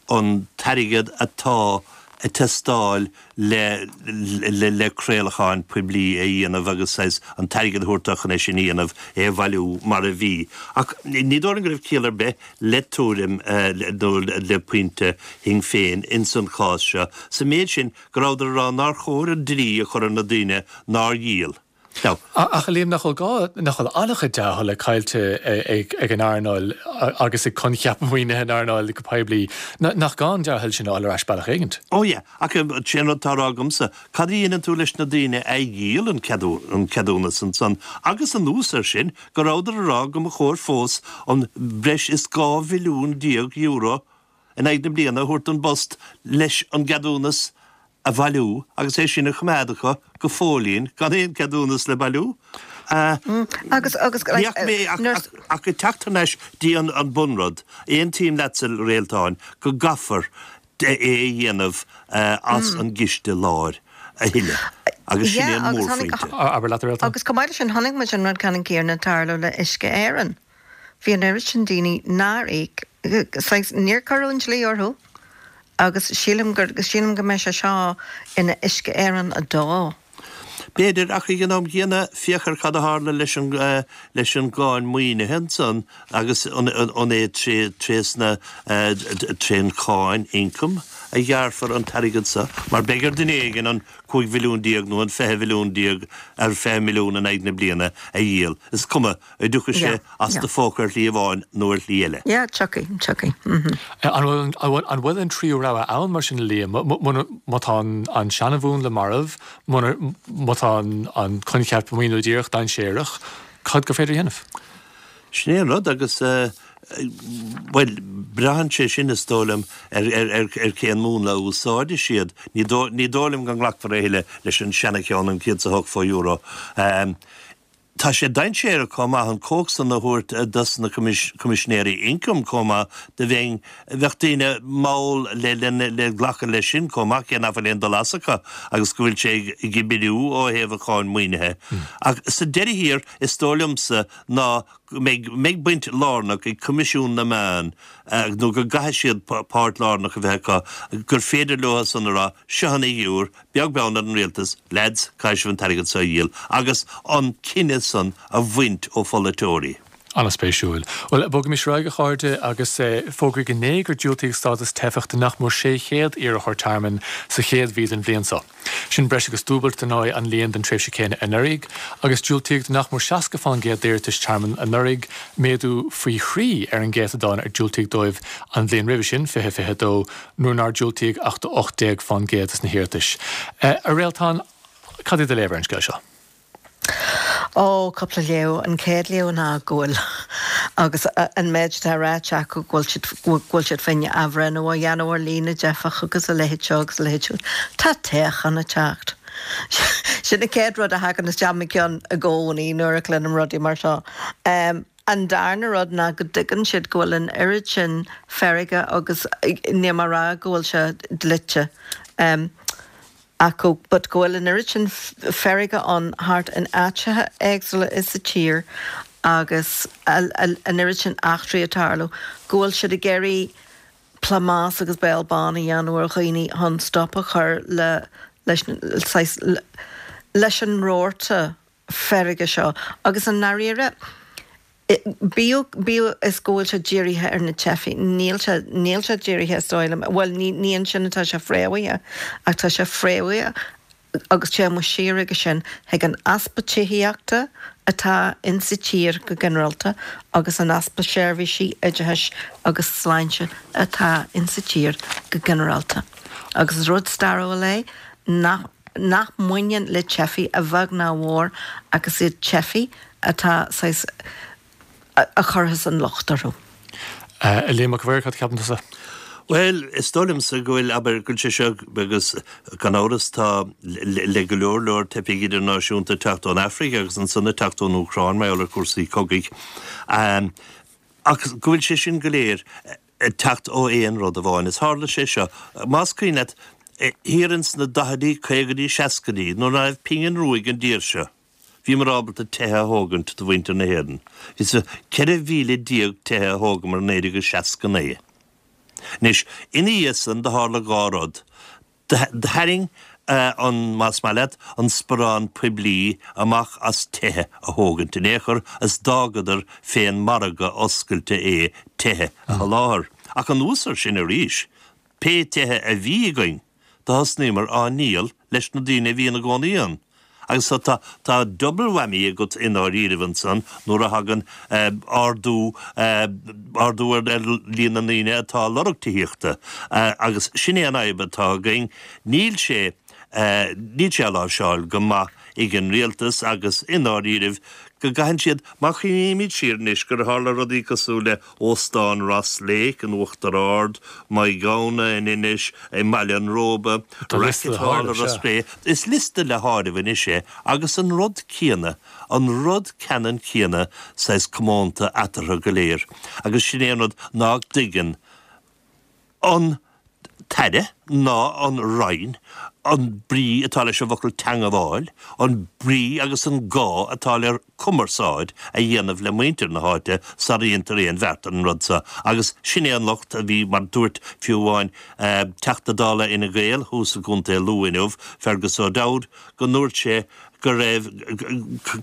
an t-airgead atá ag teastáil le le craolacháin poiblí a dhéanamh agus saghas an t-airgead a thabhairt dó chun é sin a dhéanamh, é a bhailiú mar a bhí. Ach ní dóigh liom go raibh ciall ar bith le tuairim nó le pointe Shinn Féin ins an chás seo, sa méid sin go rabhadar ag rá nár chóir an dlí a chur ar na daoine nár dhíol. Now. Ach a Liam, nach bhfuil gá, nach bhfuil an-chuid dea-thola caillte ag an earnáil agus ag coincheap maoinithe an earnáil go poiblí, nach gá an dea-thoil sin a fháil ar ais bealach éigint? Ó yeah, ach sé an rud atá á rá agamsa, cad a dhéanann tú leis na daoine a dhíol an ceadúnas ansan agus anuas air sin go rabhadar ag rá go mba chóir fós an breis is €12 mhilliún in aghaidh na bliana a thabhairt don bPost leis an gceadúnas a bhailiú agus é sin a choimeád acu go fóillín gan aon cheadúnas le bailiú. Agus, agus, Ní fhaca mé ach, ach ag teacht thar n-ais dtí an, an bunrud, aontaím leatsa, a Réaltáin, go gcaithfear é a dhéanamh as an gciste láir a thuilleadh agus sin é an mórphointe. Abair leat, a Réaltáin. Agus chomh maith leis sin, chonaic muid an rud ceannann céanna ag tarlú le Uisce Éireann. Bhí an oiread sin daoine nár íoc, saghas, níor cuireadh an dlí orthu agus sílim gur, sílim go mbeidh sé seo ina Uisce Éireann 2. B'fhéidir, ach ag an am gcéanna, féach ar cad a tharla leis an, leis an gcáin maoinithe ansan agus an, an é tré, trésna, trén cháin ioncaim a ghearrfar an t-airgead so, mar beidh ar duine éigin an 15 mhilliún nó an 20 mhilliún, ar 20 milliún in aghaidh na bliana a dhíol, is cuma. An dtiocfaidh sé as do phóca ar shlí amháin nó ar shlí eile. Yeah, tiocfaidh, tiocfaidh. Mm-hmm. An bhfuil, an bhfuil, an bhfuil an tríú rogha ann mar sin, a Liam? Muna, má tá an, an seanamhúnla marbh, muna, má tá an, an coincheap maoiniú díreach dainséarach, cad gur féidir a dhéanamh? Sin é an rud agus, bhuel, braitheann sé sin, is dóigh liom, ar, ar, ar, ar cén múnla a úsáidfidh siad. Ní dóigh, ní dóigh liom go nglacfar a thuilleadh leis an seana-cheann, an 108 fo euro. Tá sé dainséarach chomh maith an chumhacht san a thabhairt dos na Coimisinéirí Ioncaim chomh maith do bheinn, bheadh daoine mall le le glacadh leis sin chomh maith cé nach bhfuil aon dul as acu agus go bhfuil sé ag oibriú ó thaobh an cháin maoinithe. Ach sa deireadh thiar is dóigh liomsa ná go mbeidh mbeidh baint lárnach ag Coimisiún na Meán nó go gcaithfidh siad páirt lárnach a bheith acu gur féidir leo san a rá seo an fhigiúr Beag beann ar an rialtas, leaids, caithfidh sibh an t-airgead seo a dhíol agus an cinneadh san a bhaint ó pholaiteoirí. An-spéisiúil. Bhuel, bogaimis ar aghaidh, a chairde, agus fógraíodh inné gur diúltaíodh stádas teifeach do nach mór 600 iarrthóir tearmainn sa chéad mhí den bhliain seo. Sin breis agus dúbailt, dar ndóigh, an líon den tréimhse chéanna anuraidh, agus diúltaíodh do nach mór 60% d'iarratais tearmainn anuraidh, méadú faoi thrí ar an gcéatadán ar diúltaíodh dóibh an bhliain roimhe sin, 2022, nuair nár diúltaíodh ach do 18% des na hiarratais. A Réaltán, cad é do léamh ar an scéal seo? Ó, cúpla léamh. An chéad léamh ná go bhfuil, agus an méid atá ráite acu, go bhfuil siad, go bhfuil siad féin athbhreithniú a dhéanamh ar líon na dteifeach agus a leithéid seo agus a leithéid siúd. Tá toghchán ag teacht. Sin an chéad rud a thagann isteach i mo cheann i gcónaí nuair a chluinim rudaí mar seo. An darna rud ná go dtuigeann siad go bhfuil an oiread sin feirge agus níl mé ag rá go bhfuil sé dlite. acu but go bhfuil an oiread sin feirge ann thart in áiteacha éagsúla sa tír agus an oiread sin eachtraí ag tarlú go bhfuil siad ag iarraidh plámás agus béal bán a dhéanamh ar dhaoine chun stop a chur le leis saghas leis an rabharta feirge seo agus i ndáiríre bíodh, bíodh is go bhfuil sé dírithe ar na teifigh, níl sé, níl sé dírithe is dóigh liom, bhuel ní, ní ansin atá sé fréamhaithe ach tá sé fréamhaithe agus téann muid siar aige sin chuig an easpa tithíochta atá insa tír go ginearálta agus an easpa seirbhísí oideachais agus sláinte atá insa tír go ginearálta. Agus is rud stairiúil é nach. nach mbaineann le teifigh a bheag ná a mhór ach is iad teifigh atá saghas a chuirfeas an locht orthu. A Liam Mhic a' Mhaoir, cad a cheapann tusa? Bhuel, is dóigh liomsa go bhfuil, abair, go bhfuil sé seo, agus gan amhras tá le go leor leor teifigh idirnáisiúnta ag teacht ón Afraic agus ansan ag teacht ón Úcráin mar gheall ar chúrsaí cogaidh, ach go bhfuil sé sin go léir ag teacht ó aon rud amháin. Is tharla sé seo, más cuimhin leat, thiar ins na daichidí, caogaidí, seascaidí, nuair ná raibh pingin rua ag an dtír seo, bhíomar ábalta tithe a thógaint do mhuintir na hÉireann. Is 14,000 tithe a thógamar in 1969. Anois, ina dhiaidh san, do tharla dhá rud. Tharraing an, más maith leat, an sparán poiblí amach as tithe a thógaint in aon chor is d'fhágadar fén margadh oscailte é tithe a sholáthar. Ach anuas ar sin arís, pé tithe a bhí againn, do thosnaíomar á ndíol leis na daoine a bhí ina gcónaí ann. Agus so tá, tá double whammy agat i ndáiríribh ansan nuair a thagann ardú, ardú ar líon na ndaoine atá ag lorg tithíochta. Agus sin é an fhadhb atá againn. Níl sé, níl sé á láimhseáil go maith ag an rialtas agus i ndáiríribh go gcaitheann siad, má chuimhnímid siar anois gur tharla rudaí cosúil le Óstán Ross Lake in Uachtar Ard, Maigh Ghamhna in Inis, i mBaile an Róba, Rackett Hall i Ros Cré. Is liosta le háireamh anois é agus an rud céanna, an rud ceannann céanna saghas comónta eatarthu go léir. Agus sin é an rud ná dtuigeann an tAire ná an Roinn an brí atá leis an bhfocal teangabháil, an brí agus an gá atá le cumarsáid a dhéanamh le muintir na háite sara dhéantar aon bheart ar an rud seo. Agus sin é an locht a bhí, mar dúirt fiú amháin Teachta Dála Fhine Gael thuas i gContae Lú inniu, Fergus O'Dowd, go ndúirt sé go raibh,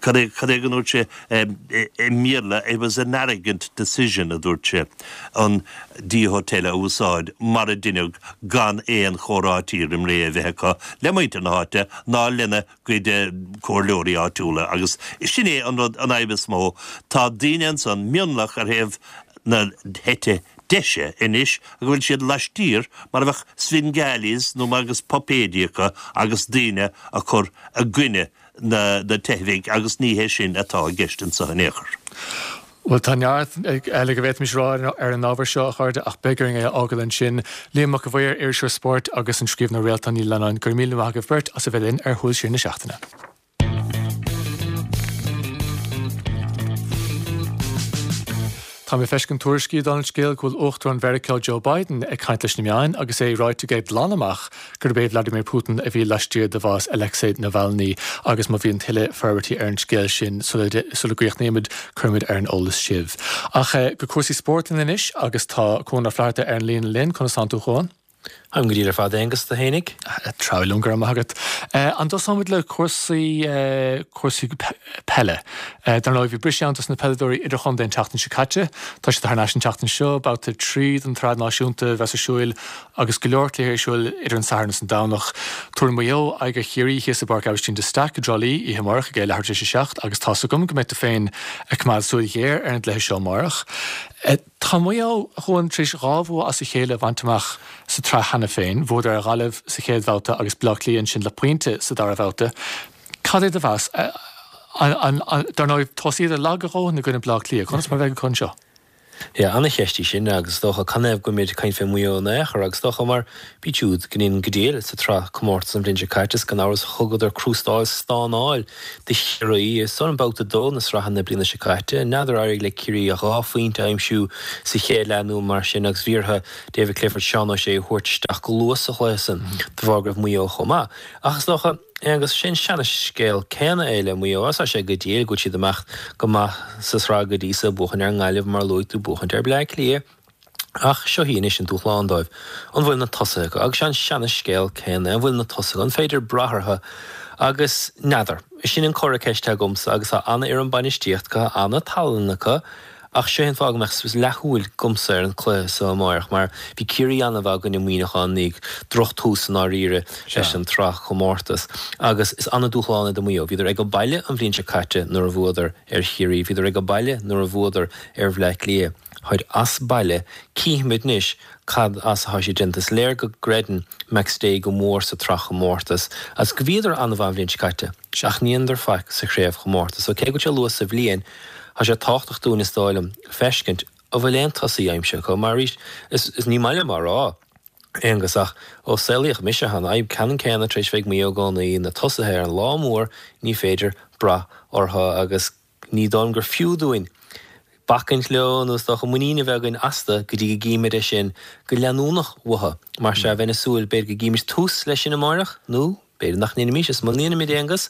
cad é, cad é go ndúirt sé i mBéarla, it was an arrogant decision a dúirt sé, an D Hotel a úsáid mar a deineadh gan aon chomhráití roim ré a bheith acu le muintir na háite ná lena gcuid comhairleoirí áitiúla agus sin é an rud, an fhadhb is mó. Tá daoine ansan, mionlach ar thaobh na heite deise anois go bhfuil siad laistiar mar a bheadh Svengalis nó mar agus puipéidí acu agus daoine a chur i gcoinne na teifigh agus ní hé sin atá i gceist anseo in aon chor. Bhuel, tá neart eile go bhféadfaimis a rá ar an ábhar seo, a chairde, ach beidh orainn é a fhágáil ansin. Liam Mac a' Mhaoir, iriseoir spóirt, agus an scríbhneoir Réaltán Ní Leannáin, go raibh míle maith agaibh beirt as a bheith linn ar Shúil Siar na Seachtaine. Tá mé ag feiscint tuairiscí, dála an scéil, go bhfuil Uachtarán Mheiriceá Joe Biden ag caint leis na meáin agus é ráite aige glan amach gurb é Vladimir Putin a bhí laistiar de bhás Alexei Navalny agus má bhíonn tuilleadh forbairtí ar an scéal sin sula gcríochnaímid, cuirfimid ar an eolas sibh. Ach go cúrsaí spóirt linn anois agus tá Cuan Ó Flatharta ar an líne linn. Conas tánn tú, a Chuain? Táim go diail ar fad, a Aonghus, tú fhéinig? Treabhadh liom, go raibh maith agat. An dtosóimid le cúrsaí, cúrsaí peile? Dar ndóigh, bhí briseadh ann dos na peileadóirí idirchontae an tseachtain seo caite. Tá siad thar n-ais an tseachtain seo, babhta 3 den tsraith náisiúnta a bheas ar siúil agus go leor cluichí ar siúil idir an Satharn is an Domhnach. Tabharfaidh Maigh Eo aghaidh ar Chiarraí thíos i bPáirc Aibhistín de Staic i dTrá Lí oíche amárach ag a leathuair tar éis a 7 agus tá's agam go mbeidh tú féin ag coimeád súil ghéar ar an gcluiche seo amárach. Tá Maigh Eo, a Chuain, tar éis 2 bhua as a chéile a bhaint amach sa tsraith cheana féin. Bhuadar ar Ghaillimh sa chéad bhabhta agus Baile Átha Cliath ansin le pointe sa dara babhta. Cad é do mheas? Dar ndóigh, thosaíodar lag a dhóthain i gcoinne Baile Átha Cliath. Conas mar a bheidh acu anseo? Yeah, ana-cheist í sin agus is dócha canathaobh go bhfuilimid ag caint fé Mhaigh Eo in aon chor agus is dócha mar bhíod siúd go ndéanann go diail sa tsraith comórtas an bhliain seo caite is gan amhras thugadar crústáil stánáil do Chiarraí i san babhta 2 na sraithe na bliana seo caite. N'fheadar ar éirigh le Ciarraí ach 2 phointe a aimsiú sa chéad leath nó mar sin agus bhí orthu David Clifford, Seán O'Shea a thabhairt isteach go luath sa chluiche san de bharr go raibh Maigh Eo chomh maith. Ach is dócha, Aonghus, sé an seana-scéal céanna é le Maigh Eo. Tá sé go diail go bhfuil siad ag imeacht go maith sa tsraith go dtí so, buachaint ar an nGaillimh mar a luaigh tú, buachaint ar Bleá Cliath. Ach seo í anois an dúshlán dóibh. An bhfuil na tosaithe acu? Agus sé an seana-scéal céanna é. An bhfuil na tosaithe acu? An féidir brath orthu? Agus n'fheadar. Sin an comhartha ceiste agamsa agus tá ana-fhoireann bainistíochta acu, tá ana-tallann acu ach seo é an fáth go mbeadh leathshúil agamsa ar an cluiche so amáireach mar bhí Ciarraí ana-mhaith i gcoinne Muineacháin ní droch-tús i ndáiríre leis an tsraith chomórtas agus is ana-dúshlán é do Mhaigh Eo. Bhíodar ag baile an bhliain seo caite nuair a bhuadar ar Chiarraí, bhíodar ag baile nuair a bhuadar ar Bhleá Cliath. Táid as baile, cífimid anois cad as atá siad déanta. Is léir go gcreideann McStay go mór sa tsraithchomórtas agus go bhíodar an-mhaith an bhliain seo caite ach ní dhéanadar faic sa chraobhchomórtas. So cé go bhfuil sé luath sa bhliain, tá sé tábhachtach dúinn is dóigh liom feiscint an bhfuil aon tosaí aimsithe acu mar arís is ní maith liom á rá, Aonghus, ach ó saolaíodh mise tá an fhadhb ceannann céanna tar éis bheith ag Maigh Eo i gcónaí, na tosaithe ar an lá mór ní féidir brath orthu agus Ní dóigh liom gur fiú dúinn bacaint leo nó is dócha muinín a bheith againn astu go dtí go gcímid é sin go leanúnach uathu. Mar sea, bheinn ag súil, b'fhéidir go gcímid tús leis sin amáireach, nó b'fhéidir nach ndéanfaimis, is muna ndéanaimid, Aonghus,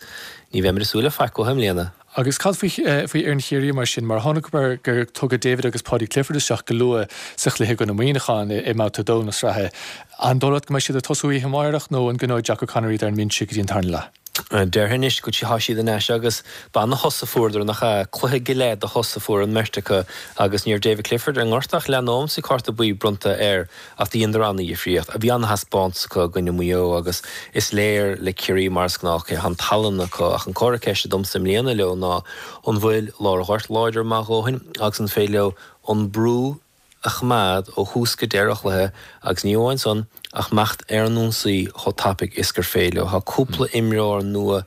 ní bheimid ag súil le faic uathu i mbliana. Agus cad faoi fhoireann Chiarraí mar sin? Mar chonaiceamar gur tugadh David agus Paudie Clifford isteach go luath sa chluiche i gcoinne Mhuineacháin i mBabhta 2 na sraithe. An dóigh leat go mbeidh siad ag tosú oíche amárach nó an gcoinneoidh Jack O'Connor iad ar an mbinse go dtí an tarna leath? Déarfainn anois go tá siad in ais agus b'ana-shos a fuaireadar, nach ea? Cluiche go leith de shos a fuair an mbeirt acu agus ní raibh David Clifford ar ngorta ach leath nóiméad is bhí cárta buí bronnta air ach do dheineadar ana-dhifríocht. Bhí ana-thaispeántas acu i gcoinne Mhaigh Eo agus is léir le Ciarraí mar is gnách tá an tallann acu ach an comhartha ceiste domsa i mbliana leo ná an bhfuil lár an ghoirt láidir maith a dhóthain agus an féidir leo an brú a choimeád ó thús go deireadh an chluiche agus ní amháin san ach imeacht ar an ionsaí chomh tapaidh is gur féidir leo. Tá cúpla imreoir nua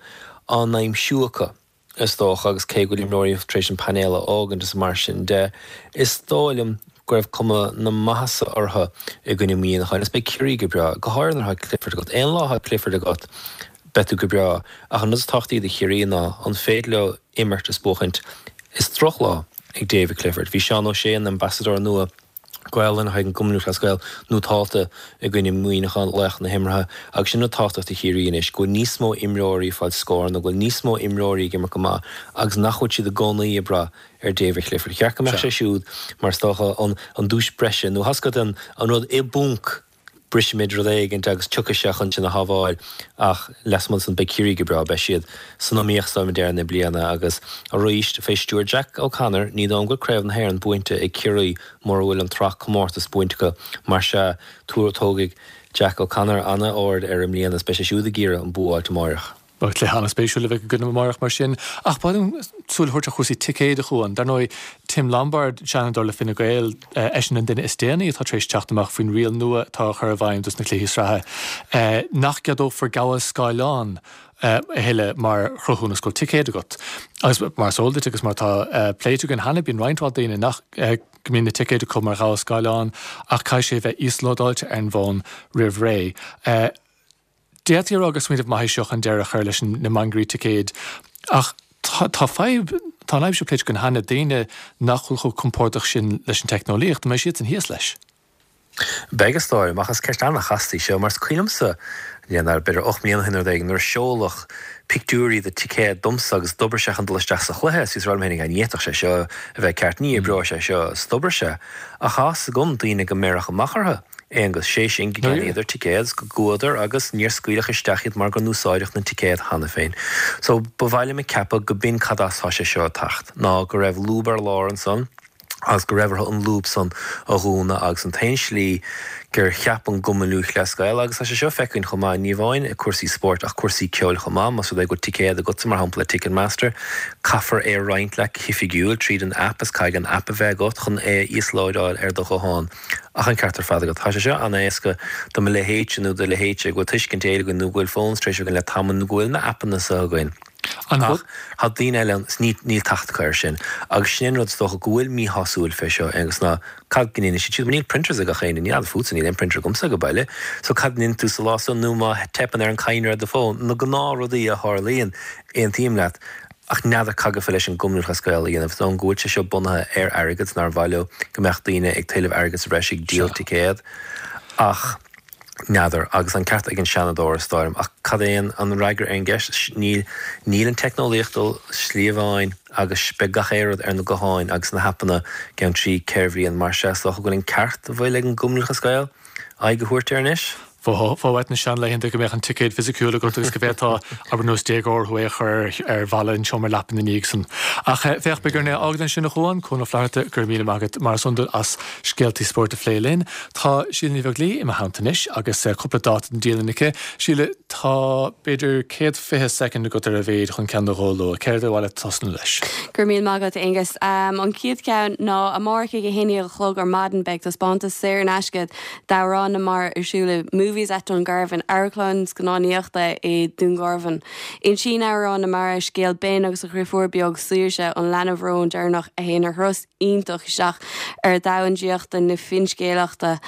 á n-aimsiú acu is dócha agus cé go bhfuil imreoirí tar éis an painéal a fhágaint is mar sin de, is dóigh liom go raibh cuma na maitheasa orthu i gcoinne Mhuineacháin agus beidh Ciarraí go breá, go háirithe nuair atá Clifford agat. Aon lá atá Clifford agat beidh tú go breá ach an rud is tábhachtaí do Chiarraí ná an féidir leo imirt is buachaint. Is drochlá ag David Clifford. Bhí Seán O'Shea, an Ambasadóir nua Gaelainne chuig an gCumann Lúthchleas Gael, nótálta i gcoinne Mhuineacháin, laoch na himeartha, agus sin rud tábhachtach do Chiarraí anois, go bhfuil níos mó imreoirí ag fáil scóranna, go bhfuil níos mó imreoirí ag imirt go maith agus nach bhfuil siad i gcónaí ag brath ar David Clifford. Cheart go mbeadh sé siúd mar is dócha an duais breise nó tá a fhios agat an rud i bponc brisfimid rud éigint agus tiocfaidh sé chun sinn a shábháil ach lasmuigh de san beidh Ciarraí go breá, beidh siad san iomaíocht is dóigh liom ag deireadh na bliana agus arís fé stiúir Jack O'Connor ní dóigh liom go bhfuil Craobh na hÉireann buainte ag Ciarraí mura bhfuil an tsraith comórtas buainte acu mar sea tógfaidh Jack O'Connor ana-aird air i mbliana is beidh sé siúd ag iarraidh an bua a fháilt amáireach. Beidh cluiche an-spéisiúil a bheidh againn amárach mar sin. Ach ba mhaith liom súil a thabhairt ar chúrsaí ticéid, a Chuain. Dar ndóigh, Tim Lombard, Seanadóir le Fine Gael, eisean an duine is déanaí atá tar éis teacht amach faoin riail nua atá á chur i bhfeidhm dos na cluichí sraithe, nach gceadófar gabháil scáileán a thuilleadh mar chruthúnas go bhfuil ticéad agat. Agus mar is eol duit agus mar atá pléite againn cheana, bíonn roinnt mhaith daoine nach go mbíonn na ticéid acu mar ghabháil scáileán ach caithfidh sé a bheith íoslódáilte ar an bhfón roimh ré. D'fhéadfaí a rá gur smaoineamh maith é seo chun deireadh a chur leis na mangairí ticéid ach tá fadhb, tá an fhadhb seo pléite againn cheana, daoine nach bhfuil chomh compordach sin leis an teicneolaíocht, an mbeidh siadsan thíos leis? Beidh is dóigh liom, ach is ceist an-chasta í seo mar is cuimhin liomsa, n'fheadar, b'fhéidir 8 mbliana ó shin nó rud éigin, nuair a seoladh pictiúirí de ticéad domsa agus d'oibrigh sé chun dul isteach sa chluiche is bhíos ag rá liom féinig, ní fhéadfadh sé seo a bheith ceart, ní oibreoidh sé seo, is d'oibrigh sé. Ach tá a fhios agam daoine go mbéarfadh amach orthu. Aonghus, sé sin, go gceannaíodar ticéad 's go gcuadar agus níor scaoileadh isteach iad mar go n-úsáideadh na ticéad cheana féin. So, ba mhaith liom a ceapadh go b'in cad as tá sé seo ag teacht, ná go raibh lúb ar lár ansan agus go raibh orthu an lúb san a dhúnadh agus an t-aon slí gur cheap an gCumann Lúthchleas Gael, agus tá sé seo feicthe againn chomh maith, ní amháin i cúrsaí spóirt ach cúrsaí ceoil chomh maith, más rud é go bhfuil ticéad agatsa mar shampla le Ticketmaster, caithfear é a roinnt leat go hoifigiúil tríd an aip is caithfidh an aip a bheith agat chun é a íoslódáil ar do ghuthán. Ach an ceart ar fad agat. Tá sé seo an-éasca do mo leithéidse nó do leithéidse go bhfuil tuiscint Gaeilge againn nó go bhfuil phones tar éis againn le tamall nó go bhfuil na aipeanna seo againn. Ach tá daoine eile ann is níl teacht acu air sin. Agus sin é an rud is dócha go bhfuil míshásúil fé seo, Aonghus, ná cad go ndéanfaidh siad siúd? Mar níl printers ag gach éinne, ní fheadar fútsa, níl aon printer agamsa ag baile. So cad a ndéanfaidh tú sa lá san nó má teipeann ar an cadhnra ar do fón, na gnáthrudaí a tharlaíonn, aontaím leat. Ach n'fheadar cad gabhfá leis an gCumann Lúthchleas Gael a dhéanamh, is dóigh liom go bhfuil sé seo bunaithe ar airgead 's nár mhaith leo go mbeadh daoine ag tuilleamh airgead sa bhreis ag díol ticéad. Ach n'fheadar. Agus an ceart ag an Seanadóir, is dóigh liom. Ach cad é an fhreagra ar an gceist? Níl níl an teicneolaíocht dul slí amháin agus beidh gach aon rud ar na gutháin agus na haipeanna gceann 3, 4 bhliain. Mar sea, is dócha go bhfuil an ceart a bhfuil ag an gCumann Lúthchleas Gael aghaidh a thabhairt air anois. Bheifeá uait na seanlaethanta go mbeadh an ticéad fisiciúil agat agus go bhféadfá, abair nós déagóir thú, é a chur ar bhalla an tseomra leapa ina dhiaidh san. Ach féach, beidh orainn é a fhágáil ansin a Chuain, Cuan Ó Flatharta, go raibh míle maith agat mar is iondúil as scéaltaí spóirt a phlé linn. Tá Síle Ní Bheaglaoí i mo theannta anois agus cúpla dáta don dialann aici. Síle, tá b'fhéidir 120 soicind agat ar a mhéid chun ceann nó dhó a lua. Céard ar mhaith leat tosnú leis? Go raibh míle maith agat, Aonghus. An chéad cheann ná amárach ag 11 a chlog ar maidin beidh taispeántas saor in aisce d'Amhrán na Mara ar siúl i Movies at Dungarvan, amharclann scannánaíochta i Dún Garbhán. Insíonn Amhrán na Mara scéal Ben agus a dhriofúr beag Saoirse, an leanbh róin deireanach a théann ar thuras iontach isteach ar dhomhan draíochta na finscéalaíochta.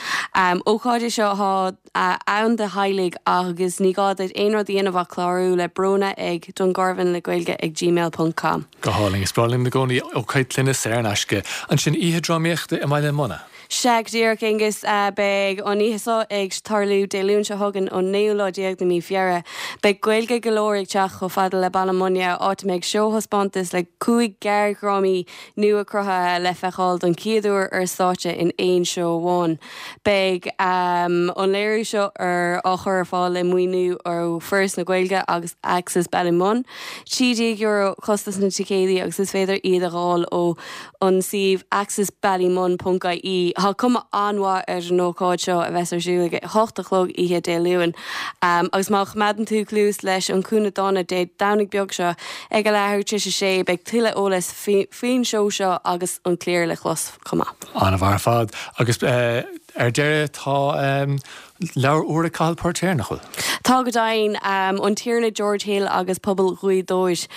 Ócáid é seo atá ann do theaghlaigh agus ní gá duit aon rud a dhéanamh ach clárú le Bróna ag Dungarvan le Gaeilge ag gmail ponc com. Go hálainn. Is breá linn i gcónaí ócáid clainne saor in aisce. Ansin oíche drámaíochta i mBaile Munna. Sea, go díreach, Aonghus. Beidh an oíche seo ag tarlú Dé Luain seo chugainn, an naoú lá déag de mí Feabhra. Beidh Gaeilge go leor ag teacht chomh fada le Baile Munna, áit a mbeidh seóthaispeántas le 5 gearrdhrámaí nua-cruthaithe le feiceáil don chéad uair ar stáitse in aon seó amháin. Beidh an léiriú seo ar á chur ar fáil le maoiniú ó Foras na Gaeilge agus Access Ballymun. €13 costas na ticéadaí agus is féidir iad a dh'fháil ó an suíomh accessballymun ponc ie. Tá cuma an-mhaith ar an ócáid seo a bheas ar siúl ag a hocht a chlog oíche Dé Luain. Agus má choimeádann tú cluas leis an Cúinne Dána Dé Domhnaigh beag seo ag a leathuair tar éis a sé beidh tuilleadh eolais faoin seó seo agus an cliar le clos chomh maith. An-mhaith ar fad. Agus ar deireadh tá Leabhar úr ag Cathal Póirtéir, nach bhfuil? Tá go deimhin. An Tiarna George Hill agus Pobal Ghaoth Dobhair.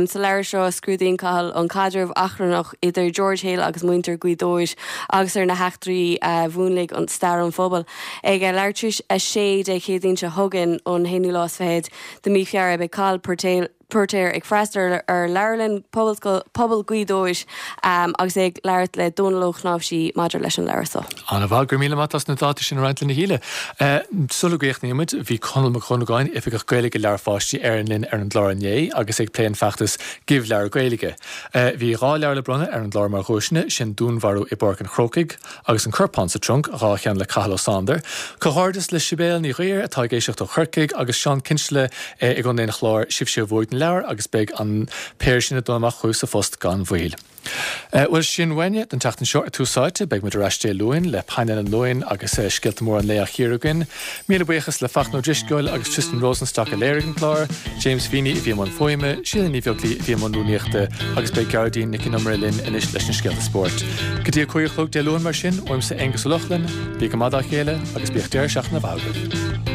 Sa leabhar seo scrúdaíonn Cathal an caidreamh achrannach idir George Hill agus muintir Ghaoth Dobhair agus ar na heachtraí a mhúnlaigh an stair an phobail. Ag a leathuair tar éis a sé Dé Céadaoin seo chugainn, an haonú lá is fichead de mí Feabhra, beidh Cathal Póirtéir, Póirtéir ag freastal ar Leabharlann Pobail Ghaoth Dobhair agus é ag labhairt le Dónal Ó Cnáimhsí maidir leis an leabhar seo. An-mhaith, go raibh míle maith as na dátaí sin a roinnt linn a Shíle. Sula gcríochnaíonn muid, bhí Conall Mac Dhonnagáin, Oifigeach Gaeilge Leabhair Pháistí Éireann linn ar an gclár inné agus é ag plé an feachtas Give Leabhar Gaeilge. Bhí 2 leabhar le bronnadh ar an gclár mar dhuaiseanna, sin Dúnmharú i bPáirc an Chrócaigh, Agus An Corpán sa Trunc, 2 cheann le Cathal Ó Sándair. Comhghairdeas le Sibéal Ní Ghuidhir atá ag éisteacht ó Chorcaigh agus Seán Kinsella i gContae an Chláir, sibhse a bhuaigh na leabhair agus beidh an péire sin ag dul amach chugaibh sa phost gan mhoill. Bhuel, sin uainne don tseachtain seo ar Tús Áite. Beidh muid ar ais Dé Luain le painéal an Luain agus scéalta móra an lae á chíoradh againn. Míle buíochas le Fachtna Ó Drisceoil agus Tristan Rosenstock a léirigh an clár, James Feeney a bhí i mbun fuaime, Síle Ní Bheaglaoí a bhí i mbun rúnaíochta agus beidh Gearóidín Nic Con Iomaire linn anois leis na scéalta spóirt. Go dtí a 5 a chlog Dé Luain mar sin, uaimse Aonghus Ó Lochlainn, bí go maith dá chéile agus bíodh deireadh seachtaine mhaith agaibh.